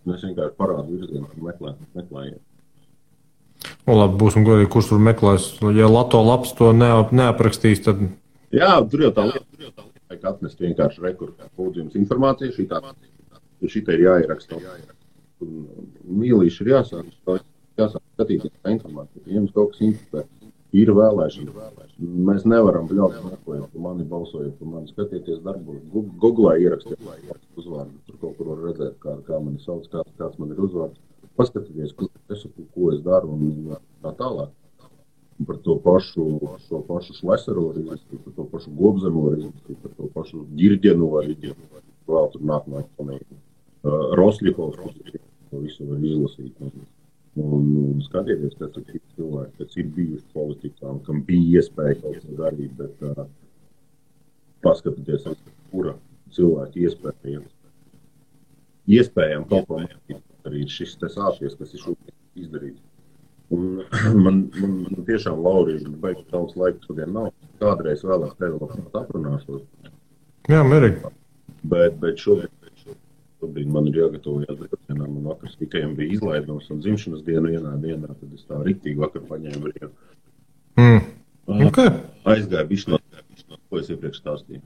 Mēs vienkārši parādu virzienu, meklējiet. Labi, būsim godīgi, kurš tur meklēs. Ja Lato labs to neaprakstīs, tad... Jā, tur jau tā lieta. Vajag atnest vienkārši rekursu informāciju, šitā ir jāieraksta. Mīlīši ir jāsāk skatīties tā informācija. Ja jums kaut kas interesē, ir vēlēšana. Mēs nevaram bļaut meklēt, pa mani balsojot, pa mani skatieties darbos. Googlā ierakstiet uzvārdu. Tur kaut kur var redzēt, kā mani sauc, kāds man ir uzvārds. Paskatieties, ko es daru un tā tālāk. Par to pašu Šleseru var izlasīt, par to pašu Gobzemu var izlasīt, par to pašu Ģirģenu var izlasīt, vēl tur nākamā eksponēta. Rosļikovs, to visu var izlasīt. Un skatieties, kas ir cilvēki, kas ir bijuši politikā, kam bija iespēja kaut ko darīt, bet paskatieties, kura cilvēki iespējami kaut ko darīt. Arī šis te sācies, kas ir šobrīd izdarīts. Un man tiešām, Laurija, baigi daudz laika šodien nav. Kādreiz vēlāk tevi labāk aprunāšos. Jā, mierīgi. Bet šobrīd man ir jāgatavojās brīvdienām. Man vakars tikai bija izlaidums un dzimšanas dienu vienā dienā, tad es tā riktīgi vakar paņēmu brīvu. Okay. Aizgāju bišķi no, ko es iepriekš stāstīju.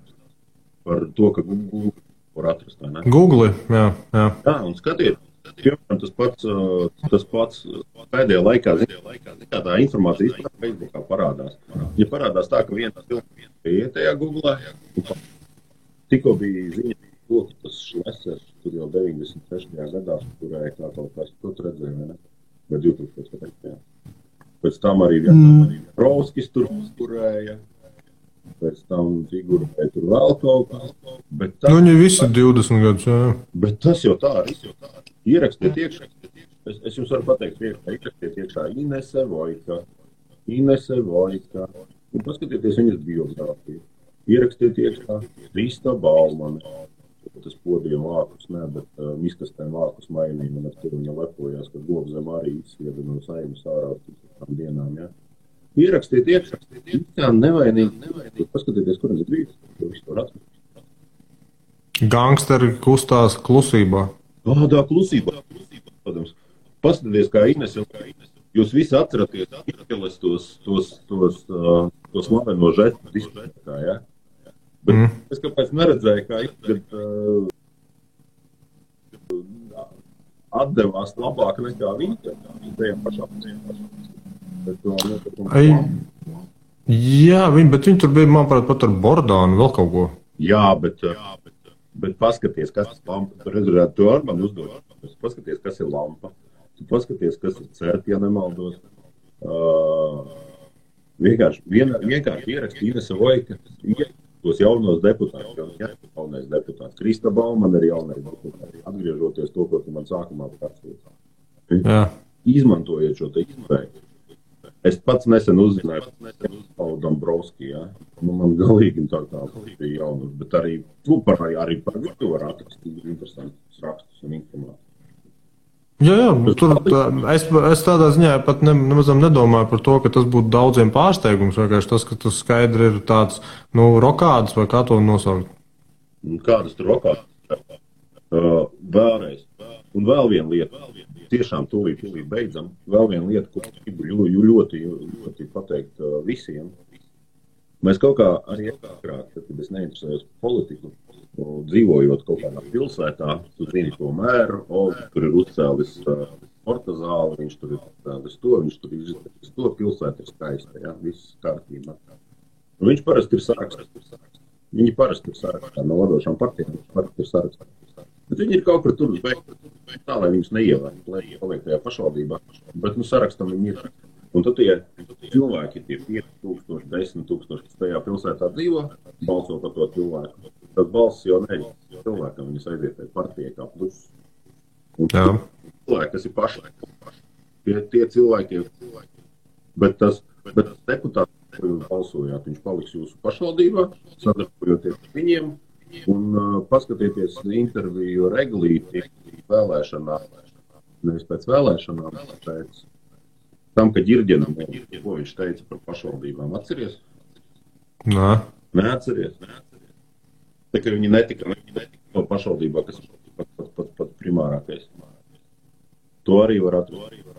Par to, ka Google var atrast, vai ne? Google, jā. Jā, un skatiet. Piemēram, tas pats pēdējā laikā, tā informācija Facebookā parādās. Ja parādās tā, ka viena cilvēka bija tajā Googlā, tikko bija ziņa, ka tas Šlesers, tur jau 96. gadā, kurēja kā kaut kas, to redzēja, vai ne? Vai 2000. Pēc tam arī Provskis tur kurēja, pēc tam figurēja tur vēl kaut kas. Viņi visi 20 gadus, jā. Bet tas jau tā arī. Ierakstiet iekšā. Es jums varu pateikt, ierakstiet iekšā Inese Vojka. Un paskatieties viņas biogrāfiju. Ierakstiet iekšā Krista Baumane. Tas podiem vākus, bet miskastēm vākus mainīja, un ar to viņa lepojās, ka Gobzem arī izsieda no Saimas ārā tām dienām, jā. Ierakstiet iekšā. Tā nevainīgi. Paskatieties, kur ir brīdis. To visu var atrast. Gangsteri kustās klusībā. Tā klusībā. Paskatieties, kā Ines jau. Jūs visi atceraties tos slaveno žestu diskotēkā, ja? Bet es kāpēc neredzēju, kā atdevās labāk nekā viņa. Tajā pašā. Jā, bet viņi tur bija, manuprāt, pat ar Bordānu vēl kaut ko. Jā, bet paskaties, kas ir lampa. Tu redzētu, tu ar mani uzdod. Paskaties, kas ir lampa. Tu paskaties, kas ir cert, ja nemaldos. Vienkārši ieraksti Inese Vojka, tos jaunos deputātus, jaunais deputāts. Krista Baumane ir jaunais deputāts. Atgriežoties to, ko tu man sākumā pārstāstīji. Izmantojiet šo te iespēju. Es pats nesen uzzināju par Dombrovski, ja? Nu, man galīgi tā kā bija jaunums, bet arī par viņu var atrakstīt interesantus rakstus un informāciju. Jā, tur es tādā ziņā pat nemaz nedomāju par to, ka tas būtu daudziem pārsteigums, vienkārši tas, ka tas skaidri ir tāds, rokāds vai kā to nosaukt. Kādas tur rokādas? Vēlreiz. Un vēl viena lieta. Tiešām tūlīt beidzam. Vēl viena lieta, ko gribu ļoti pateikt visiem. Mēs kaut kā arī agrāk, kad es neinteresējos par politiku, dzīvojot kaut kādā pilsētā, tu zini to mēru, tur ir uzcēlis sporta zāli, viņš tur ir uzcēlis to, viņš tur ir izcēlis to, pilsēta ir skaista, ja, viss kārtībā. Un viņš parasti ir sarakstā. Viņi parasti ir sarakstā no vadošām partijām, parasti ir sarakstā. Bet viņi ir kaut kur tur uz beigtu, tā, lai viņus neievērt, lai paliek tajā pašvaldībā. Bet, sarakstam viņi ir. Un tad tie cilvēki, tie 5,000, 10,000, kas tajā pilsētā dzīvo, balso par to cilvēku. Tad balss jau neļauj cilvēkam, viņas aiziet tajā partijai kā pluss. Un cilvēki, kas ir paši. Tie cilvēki ir. Bet tas deputāts, ko jūs balsojāt, viņš paliks jūsu pašvaldībā, sadarbojoties ar viņiem. Un paskatieties interviju Reglīti vēlēšanām, nevis pēc vēlēšanām, pēc tam, ka Ģirģenam, ko viņš teica par pašvaldībām, atceries? Nē. Neatceries. Tā kā viņi netika no pašvaldībā, kas ir pat primārākais. To arī var atrast.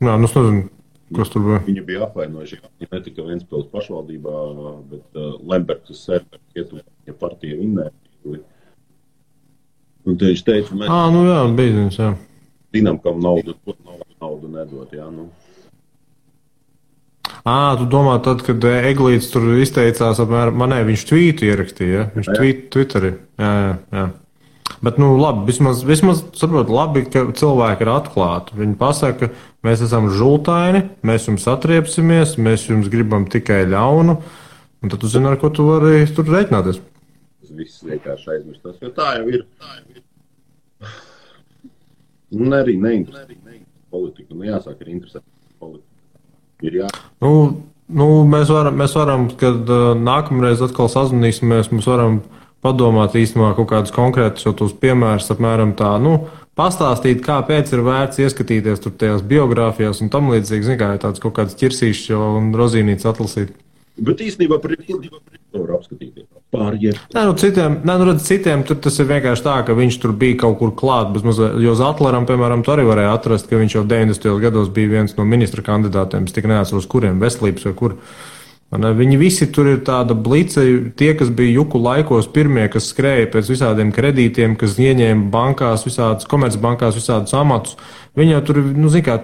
Jā, es nezinu. Kas tur bija? Viņi bija apvainojuši, ka ne tikai Ventspils pašvaldībā, bet Lembergs ja partija vinnēja. Un te viņš teica, mēs jā, bija, jā. Zinām, kam naudu nedot, jā, nu. Tu domā tad, kad Eglīts tur izteicās apmēram, viņš tvītu ierakstīja, ja? Viņš Twitterī, jā. Bet, labi, vismaz saprot, labi, ka cilvēki ir atklāti. Viņi pasaka, mēs esam žultaini, mēs jums atriepsimies, mēs jums gribam tikai ļaunu, un tad tu zini, ar ko tu vari tur reiķināties. Tas viss vienkārši aizmirstās, jo tā jau ir. Un arī neinteresē politiku, jāsāk ir interesēt politiku. Ir jā. Mēs varam, kad nākamreiz atkal sazvanīsimies, mēs varam padomāt īstenībā kaut kādus konkrētus jau tos piemērus, apmēram tā, pastāstīt, kāpēc ir vērts ieskatīties tur tajās biogrāfijās un tam līdzīgi, zin kā, tāds kaut kāds ķirsīšs jau un rozīnīts atlasīt. Bet īstenībā par var apskatīties. Citiem tur tas ir vienkārši tā, ka viņš tur bija kaut kur klāt, jo Zatleram, piemēram, tu arī varēja atrast, ka viņš jau 90. gados bija viens no ministra kandidātiem, es tik neatceros, kuriem, veselības vai kur. Viņi visi tur ir tāda blice, tie, kas bija juku laikos pirmie, kas skrēja pēc visādiem kredītiem, kas ieņēma bankās, visādas komercbankās, visādus amatus. Viņi jau tur,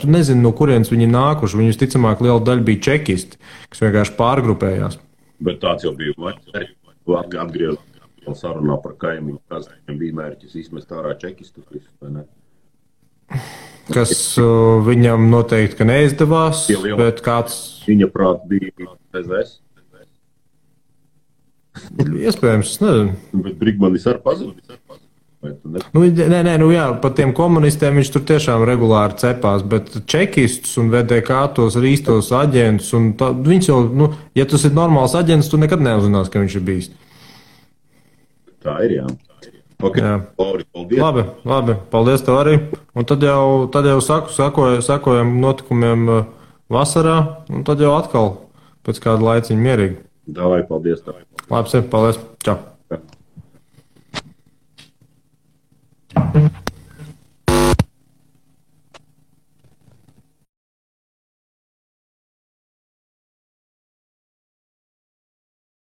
tu nezini, no kurienes viņi nākuši. Viņi visticamāk liela daļa bija čekisti, kas vienkārši pārgrupējās. Bet tāds jau bija atgriezt sarunā par kaimiņu, kas bija mērķis izmest ārā čekistus visus, vai ne? Kas viņam noteikti, ka neizdevās, bet kāds... Viņa prāt bija PZS. Iespējams, es nezinu. Bet Brigmanis ar pazudis. Par tiem komunistiem viņš tur tiešām regulāri cepās, bet čekistus un VDK tos ir īstos aģentus, un viņš jau, ja tas ir normāls aģents, tu nekad neuzzinās, ka viņš ir bijis. Tā ir, jā. Okay. Jā. Lauri, paldies. Labi, paldies tev arī. Un tad jau sakojam notikumiem vasarā, un tad jau atkal pēc kāda laiciņa mierīgi. Davai, paldies tev. Labi, paldies. Čau.